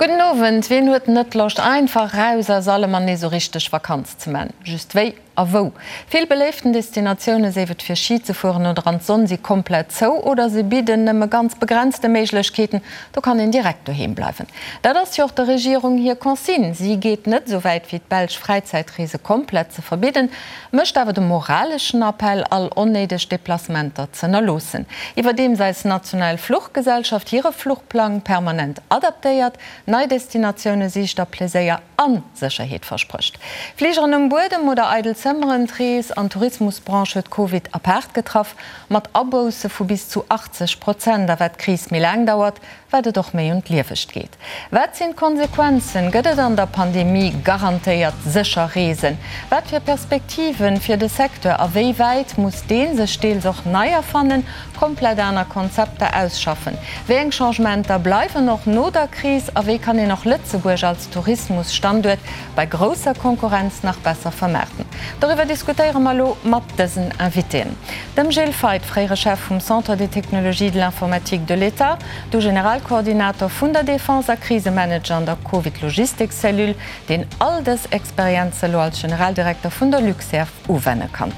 Gudden Owend. Wien huet net Loscht einfach raus aus allem an nees sou richteg Vakanz ze man? Just wéi a wou? Vill beléiften Destinatioune, séif et fir Ski ze fueren oder an d'Sonn, si komplett zou oder se bidden nëmme ganz begrenzte Méiglechkeeten. Do kann een direkt doheem bleiwen. Dat ass jo och der Regierung hir Consigne. Si geet net esou wäit wéi d'Belsch Fräizäitreese komplett ze verbidden, mécht awer de moraleschen Appell, all onnéideg Deplacementer z'ënnerloossen. Iwwerdeems eis national Fluchgesellschaft hire Fluchplang permanent adaptéiert, nei Destinatioune sicht a Pleséier a Sécherheet versprécht. Fligeren um Buedem oder eidel Zëmmeren, d'Rees an Tourismusbranche huet Covid apaart getraff, mat Abousse vu bis zu 80 Prozent. A wat d'Kris méi laang dauert, wat et och méi un d'Liewegt geet. Wat sinn d'Konsequenzen? Gëtt et an der Pandemie garantéiert sécher Reesen? Wat fir Perspektiven fir de Secteur a wéi wäit muss dee sech deels och nei erfannen, komplett aner Konzepter ausschaffen? Wéi eng Changementer bleiwen och no der Kris a wéi kann een och Lëtzebuerg als Tourismusstanduert bei grousser Konkurrenz nach besser vermaarten? Doriwwer diskutéiere mer elo mat dësen Invitéen. Dem Gilles Feith, fréiere Chef vum Centre des technologies de l'informatique de l'État, du Generalkoordinator vun der Defense a Krisemanager an der Covid-Logistik-Cellule, deen all dës Experienze elo als Generaldirekter vun der Luxair uwenne kann.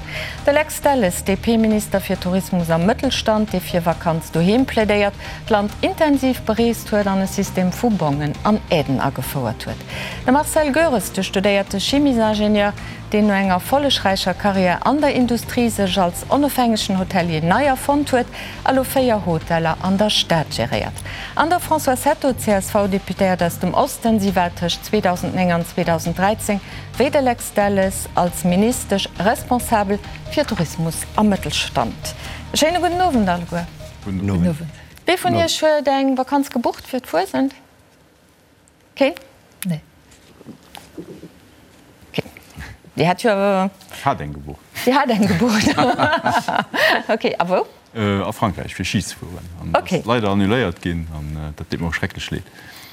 De Lex Delles, DP-Minister fir Tourismus a Mëttelstand, dee fir Vakanz doheem plädéiert, d'Land intensiv bereest huet an e System vu Bongen an Aiden agefouert huet. De Marcel Goeres, de studéierte Chimiesingenieur, deen no enger erfollegräicher Karriär an der Industrie sech als onofhängegen Hotelier nei erfonnt huet a lo 4 Hoteller an der Stad geréiert. An der Françoise Hetto, CSV-Deputéiert aus dem Osten, si war tëscht 2009 an 2013 wéi de Lex Delles als Ministesch responsabel fir Tourismus a Mëttelstand. E schéine gudden Owend alleguer. Gudden Owend. Wee vun Iech huet eng Vakanz gebucht fir d'Fuesent? Keen? Nee. Okay. Dir hat jo. Ech hat eng gebucht. Dir hat eng gebucht. Okay, a wou? A Frankräich, fir Schi ze fueren. An okay. ass leider annuléiert ginn an dat deet mer och schrecklech leed.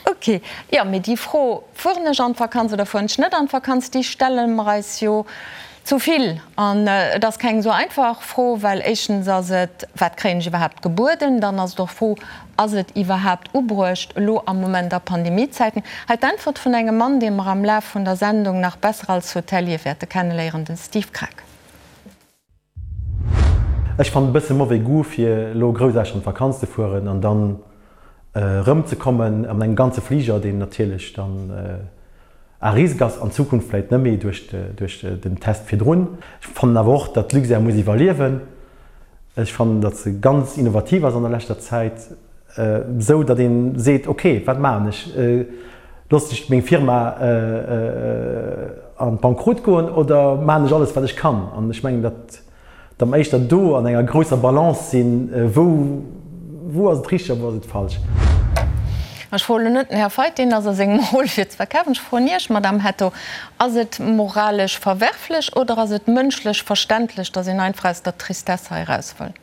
Okay. Jo, mee déi Fro, fueren ech an d'Vakanz oder fueren ech net an d'Vakanz, déi stelle mer eis jo Zu vill. An et ass keng esou einfach Fro, well éischtens ass et, wat kréien ech iwwerhaapt gebueden? Dann ass et och d'Fro, ass et iwwerhaapt ubruecht elo am Moment a Pandemiezäiten? Hei d'Äntwert vun engem Mann, dee mer am Laf vun der Sendung nach besser als Hotelier wäerte kenneléieren, den Steve Krack. Ech fannen e bësse mauvais goût fir elo groussaarteg an d'Vakanz ze fueren an dann erëm ze kommen an engem ganze Fliger, deen natierlech dann à risque ass, an Zukunft vläit net méi duerch den Test virdrun. Ech fannen awer och, datt d'Luxair muss iwwerliewen. Ech fannen, datt se ganz innovativ ass an der leschter Zäit, esou datt ee seet, ok, wat maachen ech? Loossen ech meng Firma an d'Bankrott goen oder maachen ech alles, wat ech kann? An ech mengen, datt datt mer éischter do an enger grousser Balance sinn, wou wou ass et richteg a wou ass et falsch. Ech froen elo net den Här Feith, deen ass a sengem Rôle fir ze verkafen. Ech froen Iech, Madamm Hetto, Ass et moralesch verwerflech oder ass et mënschlech verständlech, datt een einfach aus der Tristesse hei eraus wëll?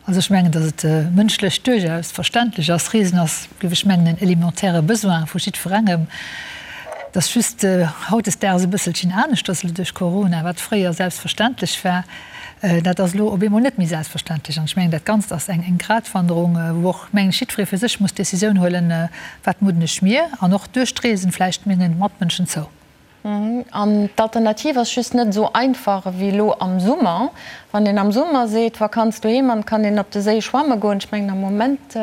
Also ech mengen, datt et mënschlech duerchaus verständlech ass. Reesen ass, géif ech mengen, en élémentaire Besoin vu jiddwerengem. Et ass just hautdesdaags e bësselchen aneschters elo duerch Corona. Wat fréier selbstverständlech war, dat ass elo op eemol net méi selbstverständlech. An ech mengen, dat Ganzt ass eng Gratwanderung, wou och, mengen ech, jiddweree fir sech muss d'Décisioun huelen, Wat mudden ech mir an och duerch d'Reesen vläicht menge Matmënschen zou? An d'Alternativ ass just net esou einfach ewéi elo am Summer. Wann een am Summer seet, Vakanz doheem an et kann een op de Séi schwamme goen, ech mengen am Moment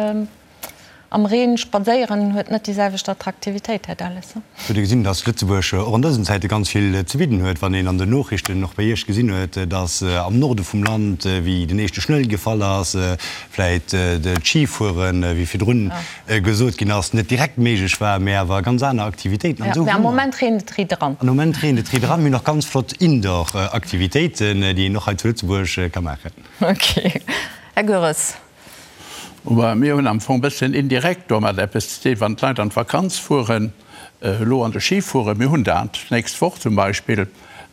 am Reen spadséieren huet net déi selwecht Attraktivitéit, Här Delles. Hutt Dir gesinn, datt Lëtzebuerg och an dësen Zäite ganz vill ze bidden huet? Wann een an den Noochrichten och bei Iech gesinn huet, datt am Norde vum Land, wéi den éischte Schnëll gefall ass, vläit d'Schifueren, wéi virdrun gesot ginn ass, net direkt méiglech war, mä awer ganz aner Aktivitéiten. An esou hu mer. Am Moment reent et riit eran. Am Moment reent et riit eran. Mir hunn och ganz flott Indoor-Aktivitéiten, déi een och hei zu Lëtzebuerg ka maachen. Ok. Här Goeres. Mir hunn am Fong e bësschen indirekt domat eppes ze dinn, wann d'Leit an d'Vakanz fueren, elo an de Ski fueren. Mir hunn dat d'nächst Woch zum Beispill.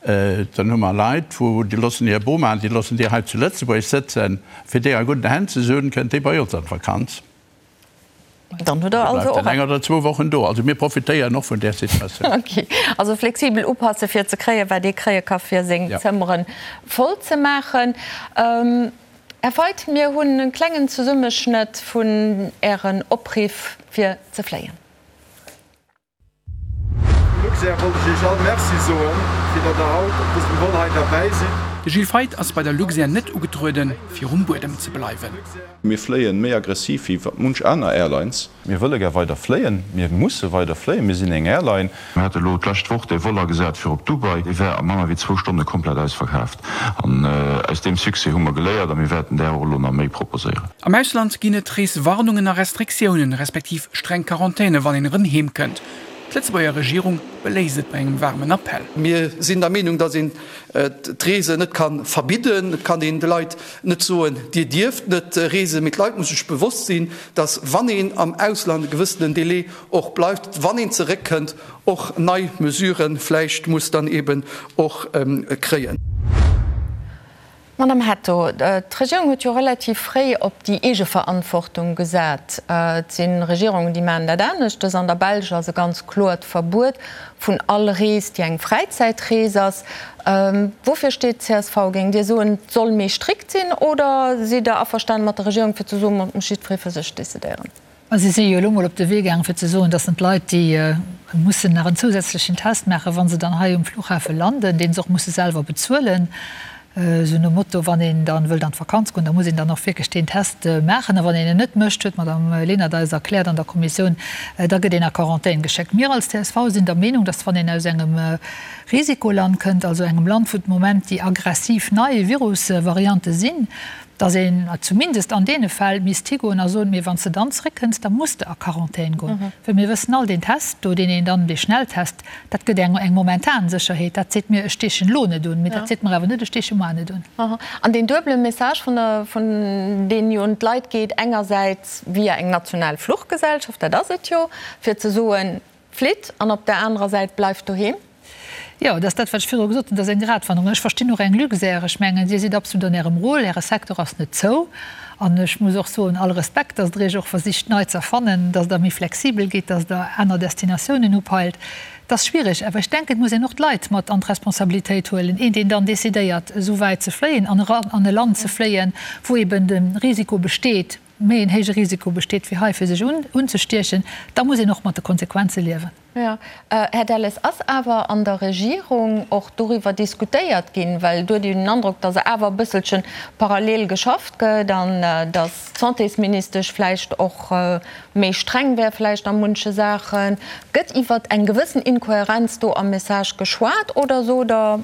Dann hu mer Leit, wou déi loossen hir Boma, déi loossen déi hei zu Lëtzebuerg sëtzen. Fir déi a gudden Hänn ze hunn, kënnt déi bei ons an d'Vakanz. Dann hutt Der also och. Eng oder zwou Wochen do. Also mir profitéieren och vun där Situatioun. Ok. Also flexibel upasse fir ze kréien, wat ee kréie ka fir seng Zëmmere voll ze maachen. Här Feith, mir hunn e klengen Zesummeschnëtt vun Ären Opriff fir ze fléien. Luxair wollt ech Iech all Merci soen, fir datt der haut op dësem Vol hei derbäi sidd. De Gilles Feith ass bei der Luxair net ugetrueden, fir um Buedem ze bleiwen. Mir fléien méi aggressiv wéi munch aner Airlines. Mir wëlle gär weider fléien, mir musse weider fléien, mir sinn eng Airline. Mir hate elo d'lescht Woch dee Vol agesat fir op Dubai, dee war a manner wéi zwou Stonne komplett ausverkaaft. An aus deem Succès hu mer geléiert a mir wäerten där och elo nach méi proposéieren. Am Ausland ginn et Reeswarnungen a Restriktiounen, respektiv streng Quarantäne wann een erëm heem kënnt. D'Lëtzebuerger Regierung beléisst et bei engem waarmen Appell. Mir sinn der Meenung, datt een d'Reesen net ka verbidden. Et kann een de Leit net soen, Dir dierft net reesen. Mee d'Leit musse sech bewosst sinn, datt wann een am Ausland e gewëssenen Délai och bleift, wann een zeréckkënnt, och nei Mesurë vläicht muss dann eeben och kréien. Madame Hetto, d'Regierung huet jo relativ fréi op déi Eegeverantwortung gesat. Et si Regierungen, déi maachen dat aneschtes. An der Belsch ass e ganz kloert Verbuet vun all Rees, déi eng Fräizäitrees ass. Woufir steet d'CSV? Géingt Dir soen, et soll méi strikt sinn oder sidd Der averstanen mat der Regierung, fir ze soen, et muss jiddweree fir sech decidéieren? A si si jo elo mol op de Wee gaangen, fir ze soen, dass en d'Leit, déi mussen nach en zousätzlechen Test maachen, wa se dann hei um Flughafe landen, dee se och musse selwer bezuelen, esou nom Motto, wann een dann wëllt an d'Vakanz goen, da muss een dann och wierklech deen Test maachen. A wann een en net mécht, huet d'Madame Lenert eis erkläert an der Kommissioun, da gëtt een a Quarantän geschéckt. Mir als csv sinn der Meenung, dass wann een aus engem Risikoland kënnt, also engem Land, wou de Moment déi aggressiv nei Virusvariante sinn, dass een zumindest an deene Fäll misst higoen a soen, mee wann s de dann zréckkënns, da muss de a Quarantän goen. Well mir wëssen all, deen Test do, deen een dann, dee Schnelltest, dat gëtt eng eng momentan Sécherheet. Dat seet mir, ech steechen elo net un, mee dat seet mer awer net, ech steeche muar net un. An deen duebele Message vun der, vun deen jo un d'Leit geet, engersäits via eng national Fluchgesellschaft, dat ass et jo, fir ze soen, Flitt, an op der anerer Säit bleift doheem. Jo, dat ass dat, wat ech virdru gesot hunn, dat ass eng Gratwanderung. Ech verstinn och eng Luxair. Ech mengen, Dir sidd absolut an Ärem Rôle, Äre Secteur ass net zou. An ech muss och soen, all Respekt, dass Der Iech och versicht nei ze erfannen, dass Der méi flexibel gitt, dass Der aner Destinatiounen upeilt. Et ass schwierig, awer ech denken, et muss een och d'Leit mat an d'Responsabilitéit huelen. Een, deen dann decidéiert, esou wäit ze fléien an an e Land ze fléien, wou eben de Risiko besteet, méi en héije Risiko besteet wéi hei fir sech unzestiechen, da muss een och mat de Konsequenze liewen. Jo. Här Delles, ass awer an der Regierung och doriwwer diskutéiert ginn, well do huet een den Androck, datt awer e bësselche parallel geschafft gëtt an datt d'Santésministesch vläicht och méi streng wär vläicht a munche Saachen. Gëtt iwwer eng gewëssen Inkohärenz do am Message geschwat oder sot Der,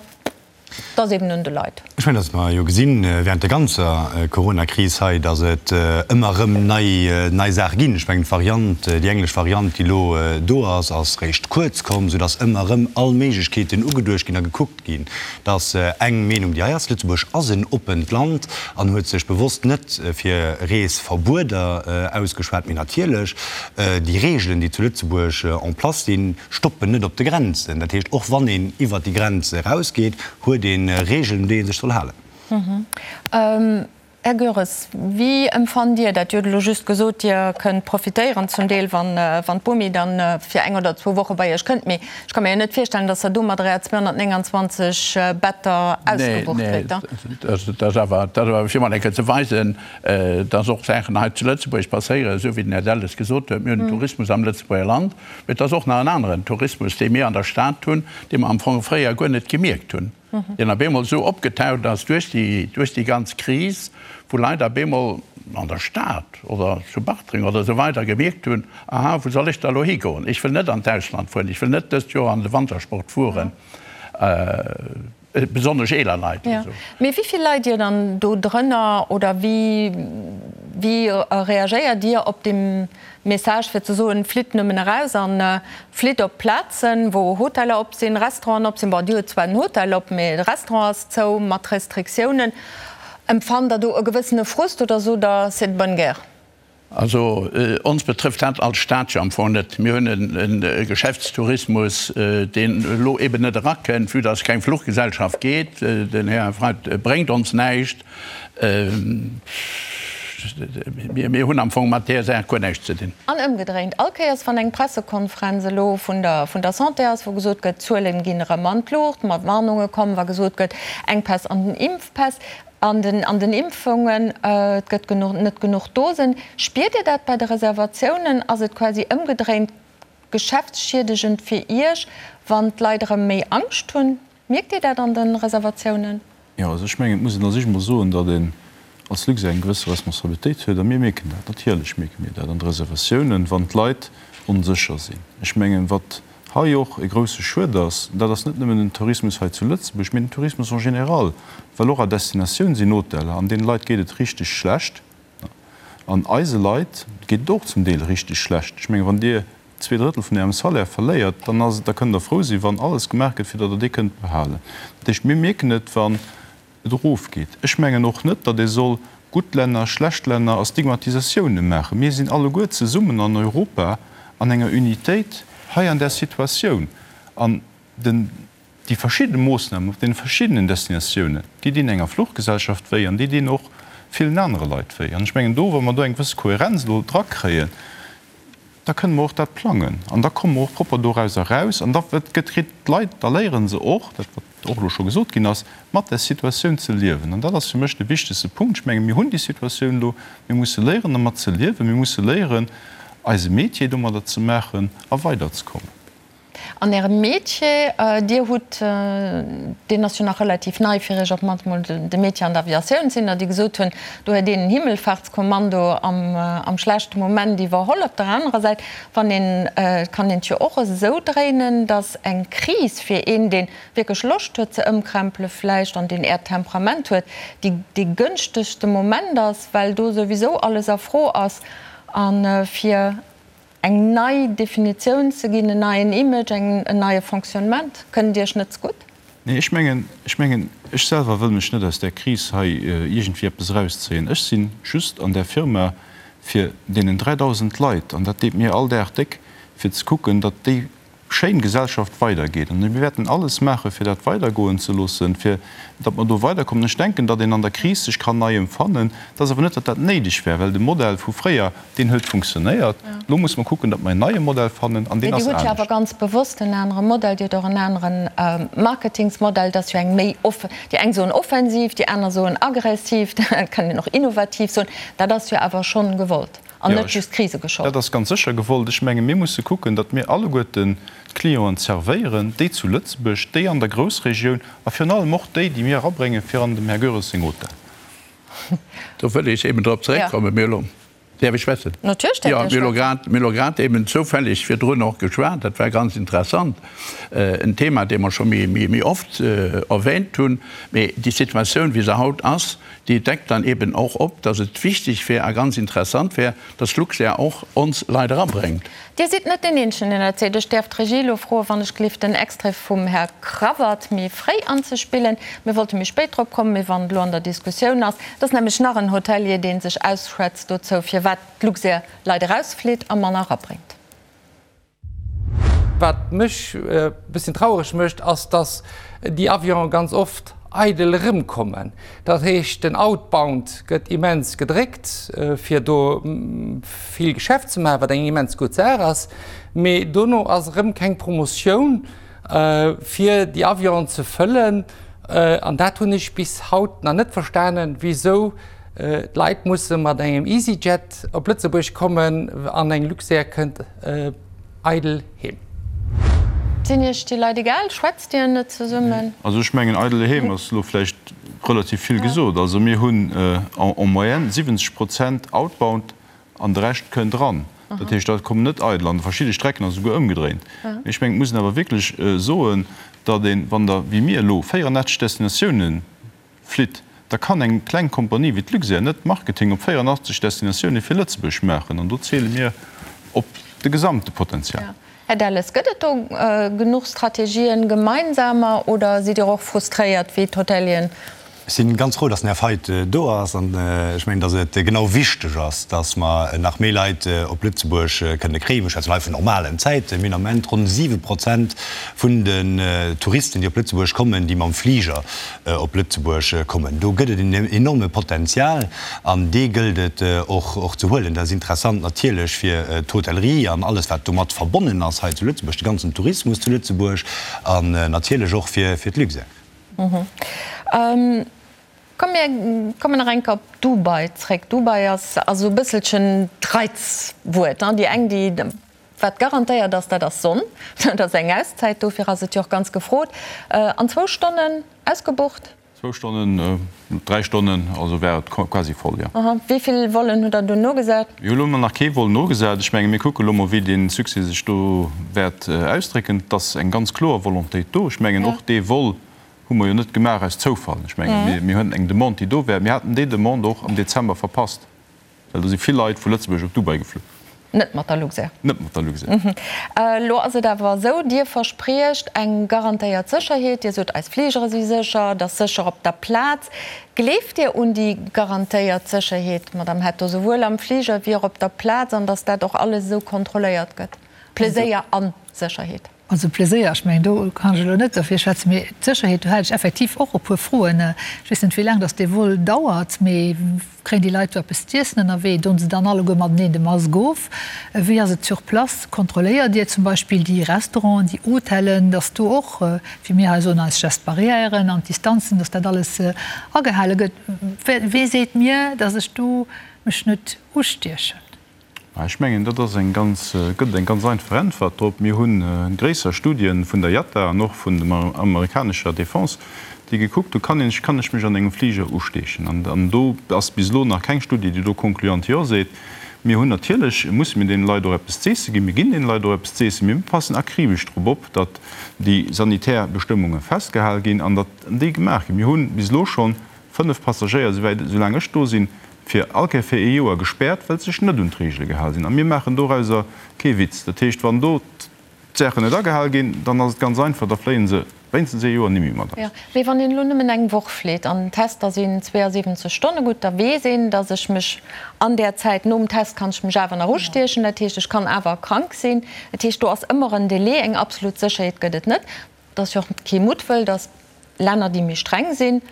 Et ass eben un de Leit. Ech mengen, datt mer jo gesinn während der ganzer Coronakris hei, datt et ëmmer erëm nei, nei Saache ginn. Ech mengen, d'Variant, déi englesch Variant, déi elo do ass, ass réischt kuerz komm, soudatt ëmmer erëm all Méiglechkeeten ugeduecht ginn a gekuckt ginn. Dat ass eng Meenung, déi hei ass. Lëtzebuerg ass en oppent Land an huet sech bewosst net fir Reesverbueder ausgeschwat. Mee natierlech, déi Reegelen, déi zu Lëtzebuerg en place sinn, stoppen net op de Grenzen. Dat heescht, och wann een iwwert déi Grenz erausgeet, huet ee Regeln, un déi ee sech soll halen. Här Goeres, wéi empfannt Dir dat? Dir hutt elo just gesot, Dir kënnt profitéieren zum Deel, wann d'Bomi dann fir eng oder zwou Woche bei Iech kënnt. Mee ech ka mir jo net virstellen, datt Der domadder Är 229 Better ausgebucht kritt. Nee, dat ass awer fir mol eng Kéier ze weisen, datt och Saachen hei zu Lëtzebuerg passéieren, esou wéi den Här Delles gesot huet. Mir hunn den Tourismus am Lëtzebuerger Land. Mee et ass och nach en aneren Tourismus, dee mir an der Stad hunn, dee mer am Fong fréier guer net gemierkt hunn, deen op eemol esou opgetaucht ass duerch déi, duerch déi ganz Kris, wou Leit op eemol an der Stad oder zu Bartreng oder esou weider gemierkt hunn, Aha, wou soll ech da elo higoen? Ech wëll net an d'Ausland fueren, ech wëll net dëst Joer an de Wantersport fueren. Besonnesch eeler Leit oder sou. Mee wéi vill leit Dir dann do drënner oder wéi wéi reagéiert Dir op dee Message fir ze soen, flitt nëmmen eraus an flitt op Plazen, wou Hoteller op sinn, Restauranten op sinn? Bon, Dir hutt zwar den Hotel op, mee de Restaurant ass zou mat Restriktiounen. Empfannt Der do e gewëssene Frust oder sot Der, c'est de bonne guerre? Also ons betrëfft dat als Stad jo am Fong net. Mir hunn e Geschäftstourismus, deen elo eben net erakënnt, vue dass keng Fluchgesellschaft geet. Den Här Freidt bréngt ons näischt. Mir hunn am Fong mat där Saach guer näischt ze dinn. An ëmgedréint, all Kéiers wann eng Pressekonferenz elo vun der vun der Santé ass, wou gesot gëtt, d'Zuelen ginn erëm an d'Luucht, mat Warnunge kommen, wa gesot gëtt, Enkpäss an den Impfpäss, An den an den Impfungen, et gëtt genuch net genuch Dosen. Spiert Dir dat bei de Reservatiounen? Ass et quasi ëmgedréint? geschäftsschiedegend fir Iech, wann d'Leit erëm méi Angscht hunn? Mierkt Dir dat an de Reservatiounen? Jo, also ech mengen, et muss een a sech emol soen, datt een als Luxair eng gewësse Responsabilitéit huet. A mir mierken dat, natierlech mierke mir dat an de Reservatiounen, wann d'Leit onsécher sinn. Ech mengen, wat hei och e grousse Schued ass, dat ass net nëmmen den Tourismus hei zu Lëtzebuerg, mee den Tourismus en général, well och à destinatioun sinn Hoteller, an deene Leit geet et richteg schlecht. An eise Leit geet et och zum Deel richteg schlecht. Ech mengen, wann Dir 2/3 vun Ärem Salaire verléiert, dann ass et, da kënnt Der frou sinn, wann alles gemaach gëtt, fir datt Der dee kënnt behalen. Dat heescht, mir mierken et, wann et erofgeet. Ech mengen och net, datt ee soll gutt Länner, schlecht Länner a Stigmatisatioune maachen. Mir sinn alleguer zesummen an Europa an enger Unitéit hei an där Situatioun. An den, déi verschidde Moossnamen op deene verschiddenen Destinatiounen, déi dinn enger Fluchgesellschaft wéi an déi dinn och villen anere Leit wéi. An ech mengen do, wa mer do eng gewësse Kohärenz elo drakréien, da kënne mer och dat plangen an da komme mer och propper dorauser eraus an da gëtt, kritt d'Leit, da léiere se och, dat wat och elo scho gesot ginn ass, mat där Situatioun ze liewen. An dat ass fir mech de wichtegste Punkt. Ech menge mir hunn déi Situatioun elo, mir musse léieren dermat ze liewen, mir musse léieren eise Métier domadder ze maachen a weiderzekommen. An Ärem Métier, Dir hutt, deen ass jo nach relativ nei fir Iech, op d'mannst mol de Métier an der Aviatioun, sinn der, déi gesot hunn, do huet een en Himmelfahrtskommando am schlechte Moment iwwerholl. Op der anerer Säit, wann een, et kann een et jo och esou dréinen, datt eng Kris fir een, dee wierklech Loscht huet ze ëmkrempele vläicht an deen Äert Temperament huet, déi dee gënschtegste Moment ass, well do souwisou alles a Fro ass a fir Eng nei Definitioun ze ginn, en neien Image, en neie Fonctionnement, kënnt Iech net zegutt? Nee, ech mengen, ech mengen, ech selwer wëll mech net aus där Kris hei iergendwéi eppes erauszéien. Ech si just an där Firma fir deenen 3.000 Leit, an dat deet mir all Dag déck, fir ze kucken, datt déi schéin Gesellschaft weidergeet. An mir wäerten alles maachen, fir dat weidergoen ze loossen, fir datt mer do weiderkommen. Ech denken, datt een an der Kris sech kann nei emfannen. Et ass awer net, datt dat néideg wär, well de Modell vu fréier, deen huet funktionéiert. Elo musse mer kucken, datt mer en neie Modell fannen, an deen ass anescht. Dir hutt jo awer ganz bewosst en anere Modell. Dir hutt och en anere Marketingsmodell. Dat ass jo eng méi, déi eng soen offensiv, déi aner soen aggressiv, dat kann een och innovativ soen. Dat ass jo awer schonn gewollt. An net just Krisegeschold. Dat ass ganz sécher gewollt. Ech menge mir musse kucken, datt mir alleguerten d'Clienten zerwéieren, déi zu Lëtzebuerg, déi an der Groussregioun a virun allem och déi, déi mir erabréngen fir an dem Här Goeres seng Hotel. Do wëll ech eben drop zeréckkommen. Mir hu lo, däerf ech schwätzen? Natierlech däerft Dir schwätzen. Jo, mir hu lo grad eben zoufälleg virdrun och geschwat, dat war ganz interessant, en Thema, dee mer scho méi oft erwähnt hunn, mee déi Situatioun, wéi se haut ass, Déi deckt dann eben och op, dass et wichteg wär a ganz interessant wär, dass Luxair och ons Leit erabréngt. Dir sidd net deen Eenzegen, deen dat seet. Ech däerf d'Regie elo froen, wann ech gelift, den Extrait vum Här Cravat méi fréi anzespillen. Mir wollte méi spéit drop kommen, mee wann et elo an der Diskussioun ass. Et ass nämlech nach en Hotelier, dee sech ausschwätzt dozou, firwat d'Luxair Leit erausflitt a manner erabréngt. Wat mech e bësschen traureg mécht, ass, dass déi Avionen ganz oft eidel erëmkommen. Dat heescht, den Outbound gëtt immens gedréckt, fir do vill Geschäft ze maachen, wat eng immens gutt Saach ass, mee dono ass erëm keng Promotioun, fir déi Avionen ze fëllen. An dat hunn ech bis haut nach net verstanen, wisou d'Leit musse mat engem EasyJet op Lëtzebuerg kommen an eng Luxair kënnt eidel heem. Sinn Iech déi Leit egal? Schwätzt Dir net zesummen? Also ech mengen, eidel heem ass elo vläicht relativ vill gesot. Also mir hunn en moyenne 70 Prozent outbound an de Rescht kënnt eran. Dat heescht, dat kommen net eidel an. Verschidde Strecken ass esouguer ëmgedréint. Mee ech mengen, et muss een awer wierklech soen, datt een, wann Der wéi mir elo 84 Destinatiounen flitt, da kann eng kleng Kompanie wéi d'Luxair net Marketing op 84 Destinatioune fir Lëtzebuerg maachen. An do ziele mir op de gesamte Potenzial. Här Delles, gëtt et do genuch Strategien, gemeinsamer, oder sidd Dir och frustréiert wéi d'Hotelieren? Ech si ganz frou, dass den Här Feidt do ass. An ech mengen, dass et genau wichteg ass, dass mer nach méi Leit op Lëtzebuerg kënne kréien. Mir schwätzen hei vun normalen Zäiten. Mir hunn am Moment ronn 7 Prozent vun den Touristen, déi op Lëtzebuerg kommen, déi mam Fliger op Lëtzebuerg kommen. Do gëtt et en enorme Potenzial an dee gëllt et och ze huelen. Dat ass interessant natierlech fir d'Hotellerie an alles wat domat verbonnen ass hei zu Lëtzebuerg, de ganzen Tourismus zu Lëtzebuerg an natierlech och fir d'Luxair. Komm mir kommen nach eng Kéier op Dubai zréck. Dubai ass esou e bësselchen d'Reizwuert, déi eng déi. Wat garantéiert ass, dat ass Sonn. Dat ass eng Auszäit, dofir ass et jo och ganz gefrot. An zwou Stonnen ausgebucht? Zwou Stonnen, dräi Stonnen, also war et quasi voll, jo. Aha. Wéi vill Vollen hutt Der dunn nogesat? Mir hu lo nach kee Vol nogesat. Ech menge mir kucke lo mol, wéi dee Succès sech do wäert ausdrécken. Et ass eng ganz kloer Volontéit do. Ech mengen och dee Vol hu mer jo net gemaach aus Zoufall. Ech menge mir hunn eng Demande, déi do war. Mir haten déi Demande och am Dezember verpasst. Well do si vill Leit vu Lëtzebuerg op Dubai geflu. Net mat der Luxair? Net mat der Luxair. Elo ass et awer esou, Dir verspriecht eng garantéiert Sécherheet. Dir sot, eis Fligere si sécher, et ass sécher op der Plaz. Gleeft Dir un déi garantéiert Sécherheet, Madamm Hetto, souwuel am Fliger wéi och op der Plaz, an datt dat och alles esou kontrolléiert gëtt? Pleséier a Sécherheet. Also Pleséier, ech mengen, do kann ech elo net derfir schwätzen, mee d'Sécherheet, do hat ech effektiv och e puer Froen. Ech weess net, wéi laang datt dee Vol dauert, mee kréien déi Leit do eppes z'iessen ënnerwee? Doen se dann alleguer mateneen de Mask of? Wéi ass et sur place? Kontrolléiert Dir zum Beispill déi Restauranten, déi Hotellen, datt do och, wéi mir hei soen, eis Gestes barrièren an d'Distanzen, datt dat alles agehale gëtt? Wee seet mir, datt ech do mech net ustiechen? Ech mengen, dat ass eng ganz, gëtt et eng ganz einfach Äntwert drop. Mir hu gréisser Studien vun der IATA an och vun der amerikanescher Defense, déi gekuckt hu, kann een, kann ech mech an engem Fliger usteechen? An do ass bis elo nach keng Studie, déi do concluant Jo seet. Mir hunn natierlech, musse mir deene Leit och eppes z'eesse ginn. Mir ginn deene Leit och eppes z'eessen. Mir passen akribesch drop op, datt déi sanitär Bestëmmunge festgehal ginn an datt déi gemaach ginn. Mir hu bis elo schonn 5 Passagéier, souwäit, soulaang ech do sinn, fir all Kéier fir ee Joer gespäert, well se sech net un d'Reegele gehal sinn. A mir maachen dorauser kee Witz. Dat heescht, wann do d'Saachen net agehal ginn, dann ass et ganz einfach, da fléie se wéinstens ee Joer nimmi mat eis. Jo, mee wann een elo nëmmen eng Woch flitt an d'Tester sinn 72 Stonne gutt, da weess een, datt ech mech an där Zäit nom Test kann ech mech awer nach ustiechen. Dat heescht, ech kann awer krank sinn. Dat heescht, do ass ëmmer en Delai, eng absolut Sécherheet gëtt et net. Et ass jo och kee Muttwëll, datt Länner, déi méi streng sinn,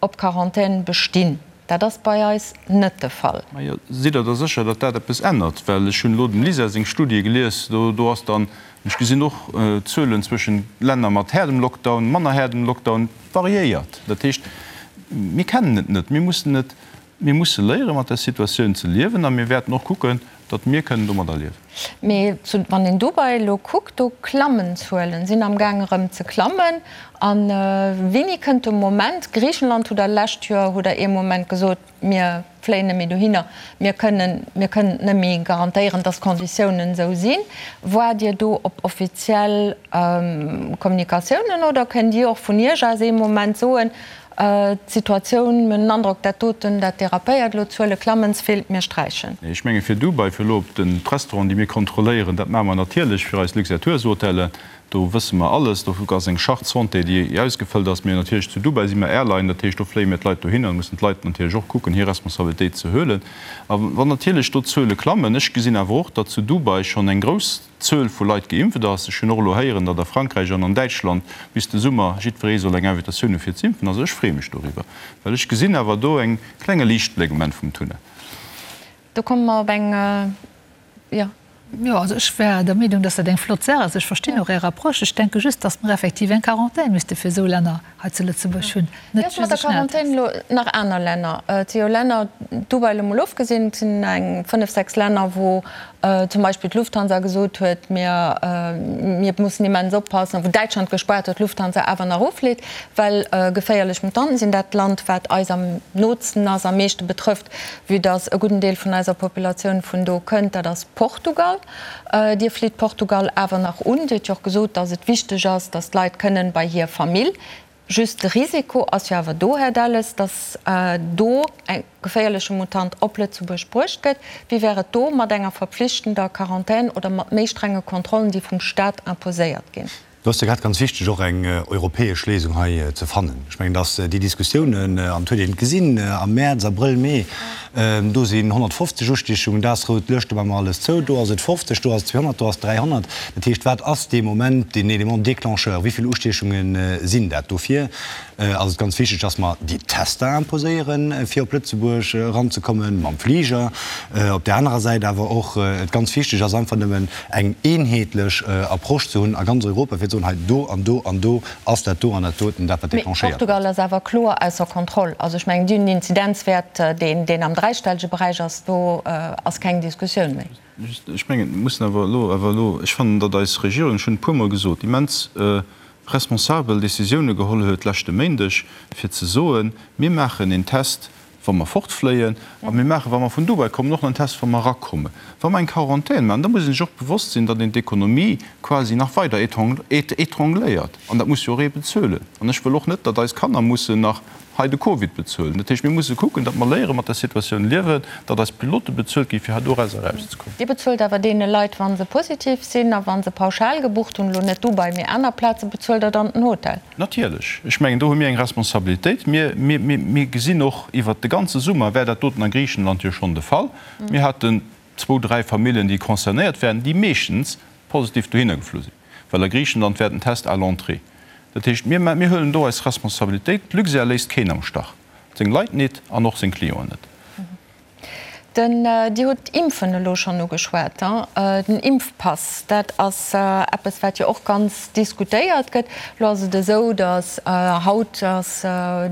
op Quarantän bestinn. Dat ass bei eis net de Fall. Majo, sidd Der da sécher, datt dat eppes ännert? Well ech hunn elo dem Lisa seng Studie gelies, do do ass dann, ech gesinn och Zuelen zwëschen Länner mat haardem Lockdown, manner haardem Lockdown, variéiert. Dat heescht, mir kennen et net, mir mussen et Mir musse léiere mat der Situatioun ze liewen a mir wäerten och kucken, datt mir kënnen domadder liewen. Mee wann een Dubai elo kuckt, do klammen d'Zuelen, sinn am gaang erëm ze klammen. A wéini kënnt de Moment, Griichenland hutt Der lescht Joer hutt Der ee Moment gesot, mir fléien net méi dohinner, mir kënnen, mir kënnen et net méi garantéieren, datt d'Konditiounen esou sinn. Waart Dir do op offiziell Kommunikatiounen oder kënnt Dir och vun Iech aus ee Moment soen, D'Situatioun, mir hunn den Androck, dat doten, dat dérapéiert elo, d'Zuele klammen ze vill, mir sträichen. Ech menge fir Dubai, fir elo op den d'Restauranten, déi mir kontrolléieren, dat maache mer natierlech fir eis Luxair Tours Hotellen, do wësse mer alles, do ass eng Charte santé, déi ausgefëllt ass. Mee natierlech zu Dubai si mer Airline, dat heescht do fléie mir d'Leit dohinner, da mussen d'Leit natierlech och kucken, hir Responsabilitéit ze huelen. A wann natierlech do d'Zuele klammen, ech gesinn awer och, datt zu Dubai schonn eng grouss Zuel vu Leit geimpft ass. Ech hunn och elo héieren, datt a Frankräich an an Däitschland bis de Summer jiddweree soll eng Invitatioun hu fir z'impfen. Also ech freeë mech doriwwer, well ech gesinn awer do eng klenge Liichtbléck um Enn vum Tunnel. Do komme mer op eng, jo. Jo, also ech wär der Meenung, datt dat eng flott Saach ass. Ech verstinn och Är Approche. Ech denke just, datt mer effektiv eng Quarantän misste fir esou Länner hei zu Lëtzebuerg hunn, net just e Schnelltest. Elo nach aner Länner, et si jo Länner, Dubai elo mol ofgesinn, et sinn eng 5, 6 Länner, wou zum Beispill d'Lufthansa gesot huet, mir, mir mussen immens oppassen, wou Däitschland gespaart huet, d'Lufthansa awer nach uflitt, well geféierlech Mutanten sinn. Dat Land, wat eis am nootsten ass, am meeschte betrëfft, vue dass e gudden Deel vun eiser Populatioun vun do kënnt, dat ass Portugal. Dir flitt Portugal awer nach un. Dir hutt jo och gesot, dass et wichteg ass, dass d'Leit kënnen bei hir Famill. Just de Risiko ass jo awer do, Här Delles, dass do e geféierleche Mutant op Lëtzebuerg bruecht gëtt. Wéi wär et do mat enger verpflichtender Quarantän oder mat méi strenge Kontrollen, déi vum Stat imposéiert ginn? Do ass jo grad ganz wichteg, och eng europäesch Léisung hei ze fannen. Ech mengen, dass déi Diskussiounen, an et huet een et gesinn am Mäerz, Abrëll, Mee, do sinn 150 Ustiechungen, dat ass rout Luecht, do maache mer alles zou, do ass et 50, do ass et 200, do ass et 300. Dat heescht, wat ass dee Moment deen Élément déclencheur, wéi vill Ustiechunge sinn dat? Dofir. ass et ganz wichteg, dass mer déi Tester imposéieren, fir op Lëtzebuerg eranzekommen mam Fliger. Op där anerer Säit awer och et ganz wichteg ass, einfach nëmmen eng eenheetlech Approche ze hunn a ganz Europa, fir ze soen, hei do an do an do ass dat do an dat doten dat, wat Mee déclenchéiert Portugal gëtt. ass awer kloer ausser Kontroll. Also ech mengen, déi hunn en Inzidenzwäert, deen, deen am dräistellege Beräich ass. Do ass keng Diskussioun méi. Just, ech mengen, mir mussen awer elo, awer elo, ech fannen, datt eis Regierung, ech hunn e puermol gesot, immens responsabel Décisioune geholl huet leschte Méindeg, fir ze soen, mir maachen een Test, wa mer fortfléien, a mir maachen, wa mer vun Dubai kommen, och nach en Test, wa mer erakommen. Wa mer eng Quarantän maachen, da muss ee sech och bewosst sinn, datt een d'Ekonomie quasi nach weider étrangléiert. An dat muss jo och ee bezuelen. An ech wëll och net, datt eis Kanner mussen nach hei de Covid bezuelen. Dat heescht, mir musse kucken, datt mer léiere mat der Situatioun liewen, datt eis Pilote bezuelt ginn, fir hei doraus erauszekommen. Dir bezuelt awer deene Leit, wa se positiv sinn a wa se pauschal gebucht hunn, elo net Dubai, mee aner Plazen, bezuelt Der dann den Hotel? Natierlech. Ech mengen, do hu mir eng Responsabilitéit. Mir, mir, mir gesinn och, iwwert de ganze Summer war dat doten a Griichenland jo schonn de Fall. Mir haten zwou, dräi Familljen, déi concernéiert waren, déi meeschtens positiv dohinner geflu sinn, well a Griichenland war den Test à l'entrée. Dat heescht, mir, mir huelen do eis Responsabilitéit. D'Luxair léisst keen am Stach, seng Leit nit an och seng Clienten net. Den, Dir hutt d'Impfen elo schonn ugeschwat, den Impfpass, dat ass eppes, wat jo och ganz diskutéiert gëtt. Elo ass et esou, datt haut ass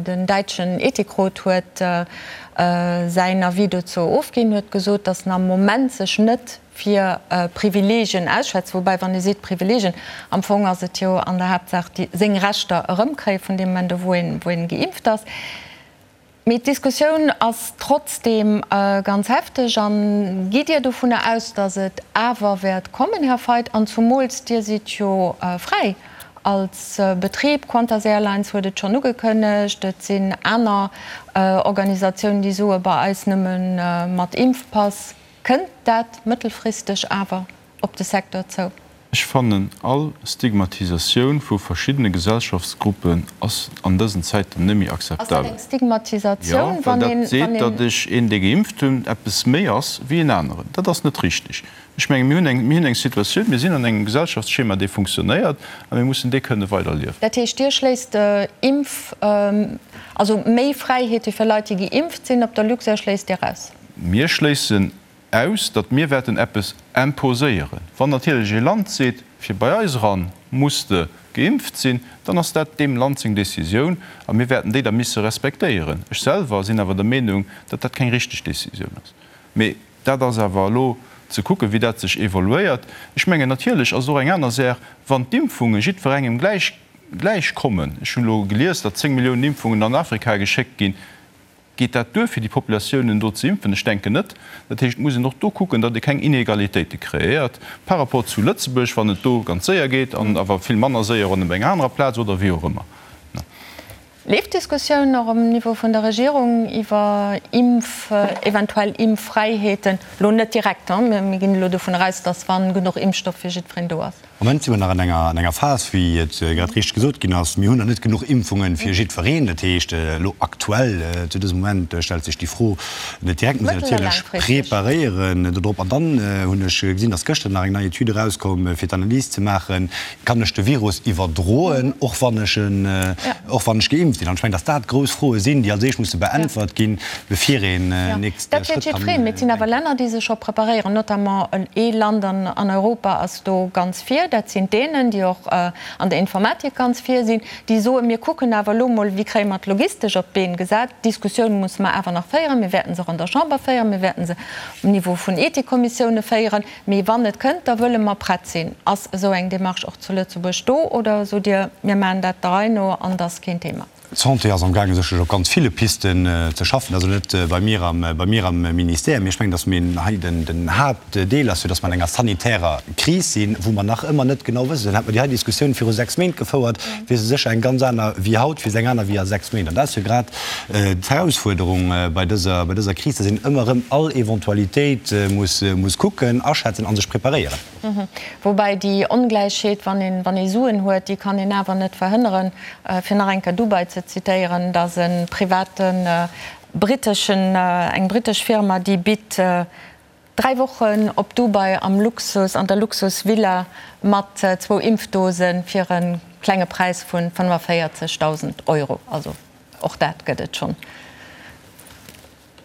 den däitschen Ethikrot huet säin Avis dozou ofginn, huet gesot, datt en am Moment sech net fir Privileegien ausschwätzt. Woubäi, wann ee seet Privileegien, am Fong ass et jo an der Haaptsaach déi seng Rechter erëmkréie vun deem Moment u wou een geimpft ass. Mee d'Diskussioun ass trotzdeem ganz hefteg. A gitt Dir dovunner aus, datt et awer wäert kommen, Här Feidt? An zumools Dir sidd jo fräi als Betrib. Qantas Airlines huet et schonn ugekënnegt. Et sinn aner Organisatiounen, déi soe bei eis nëmme mat Impfpass. Kënnt dat mëttelfristeg awer op de Secteur zou? Ech fannen, all Stigmatisatioun vu verschiddene Gesellschaftsgruppen ass an dësen Zäiten net méi Ass dat akzeptabel. eng Stigmatisatioun, Jo, well wann dat een, seet, wann een. datt ech een, dee geimpft hunn, eppes méi ass wéi en aneren. Dat ass net richtig. Ech menge mir hunn eng, mir hunn eng Situatioun, mir sinn an engem Gesellschaftsschema, dee funktionéiert, a mir mussen dee kënne weiderliewen. Dat heescht, Dir schléisst Impf, also méi Fräiheete fir Leit, déi geimpft sinn, op der Luxair schléisst Dir aus? Mir schléissen aus, datt mir wäerten eppes imposéieren. Wann natierlech ee Land seet, fir bei eis eran muss de geimpft sinn, dann ass dat deem Land seng Décisioun a mir wäerten déi da misse respektéieren. Ech selwer sinn awer der Meenung, datt dat keng richteg Décisioun ass. Mee dat ass awer elo ze kucken, wéi dat sech evoluéiert. Ech mengen, natierlech ass et och eng aner Saach, wann d'Impfunge jiddwerengem gläich gläich kommen. Ech hunn elo gelies, datt 10 Milliounen Impfungen an Afrika geschéckt ginn. Geet dat duer, fir déi Populatiounen do ze impfen? Ech denken net. Dat heescht, et muss een och do kucken, datt ee keng Inegalitéite kreéiert par rapport zu Lëtzebuerg, wann et do ganz séier geet an awer vill manner séier op enger anerer Plaz oder wéi och ëmmer. Leeft d'Diskussioun och um Niveau vun der Regierung iwwer Impf, eventuell Impffräiheeten? Elo net direkt, mir ginn elo dovun aus, datt wa genuch Impfstoff fir jiddwereen do ass. Am Moment si mer nach an enger, an enger Phas, wéi et grad richteg gesot ginn ass, mir hunn nach net genuch Impfunge fir jiddwereen. Dat heescht, elo aktuell, zu dësem Moment stellt sech déi Fro net direkt. Mir sinn natierlech preparéieren dodrop. An dann hunn ech gesinn, dass gëschter nach eng nei Etüd erauskomm, fir d'Analys ze maachen, Kann ech de Virus iwwerdroen, och wann ech en, och wann ech geimpft sinn? An ech mengen, dass dat grouss Froe sinn, déi als éischt musse beäntwert ginn, bevir een nächste Dat Schrëtt wäert kann jiddwereen. Mee et sinn awer denken. Länner, déi sech scho preparéieren, notamment ee Land an Europa ass do ganz vir, dat sinn d'Dänen, déi och an der Informatik ganz vir sinn, déi soen, mir kucken awer elo mol, wéi kréie mer d'Logistesch op d'Been gesat. D'Diskussioun musse mer awer nach féieren. Mir wäerten se och an der Chamber féieren, mir wäerten se um Niveau vun Ethikkommissioune féieren. Mee wann et kënnt, da wëlle mer prett sinn. Ass esou eng Démarche och zu Lëtzebuerg do oder sot Dir, mir maachen dat der Rei no an et ass keen Thema? D'Santé ass amgaangen, sécherlech op ganz ville Pisten ze schaffen. Also net bei mir am, bei mir am Ministère, mee ech mengen, datt mir hei den, den Haaptdeel ass, fir datt mer an enger sanitärer Kris sinn, wou mer nach ëmmer net genau wëssen. Hätte mer déi hei Diskussioun viru 6 Méint gefouert, wier se sécher eng ganz aner wéi haut, wier se eng aner wéi a 6 Méint. An dat ass jo grad d'Herausfuerderung bei dëser, bei dëser Kris, datt een ëmmer erëm all Eventualitéit muss, muss kucken, aschätzen a sech preparéieren. Woubäi déi Ongläichheet, wann een, wann ee Suen huet, déi kann een awer net verhënneren. Fir nach eng Kéier Dubai ze zitéieren, et ass e privaten briteschen, eng britesch Firma, déi bitt. 3 Wochen op Dubai am Luxus, an der Luxusvilla mat zwou Impfdosen fir e klenge Präis vu 45.000 Euro. Also och dat gëtt et schonn.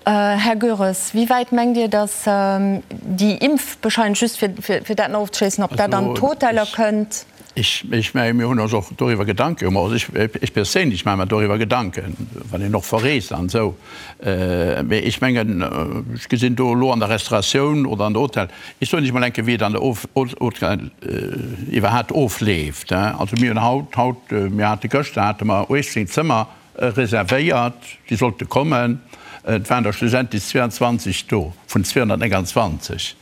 Här Goeres, wéi wäit mengt Dir, datt déi Impfbescheinigung, just fir dat nach ofzeschléissen, ob dat an d'Hoteller kënnt? Ech menge mir hunn ons och doriwwer Gedanke gemaach, also ech perséinlech maache mer doriwwer Gedanken, wann een och verreest an esou. Mee ech mengen, ech gesinn do elo an der Restauratioun oder an der Hotel, ech soen lech mol eng Kéier, wéi et an der Hotel iwwerhaapt ofleeft. Also mir hunn haut, haut, mir hate gëschter hate mer 18 Zëmmer reservéiert, déi sollte kommen. Et waren der schlussendlech 22 do vun 229.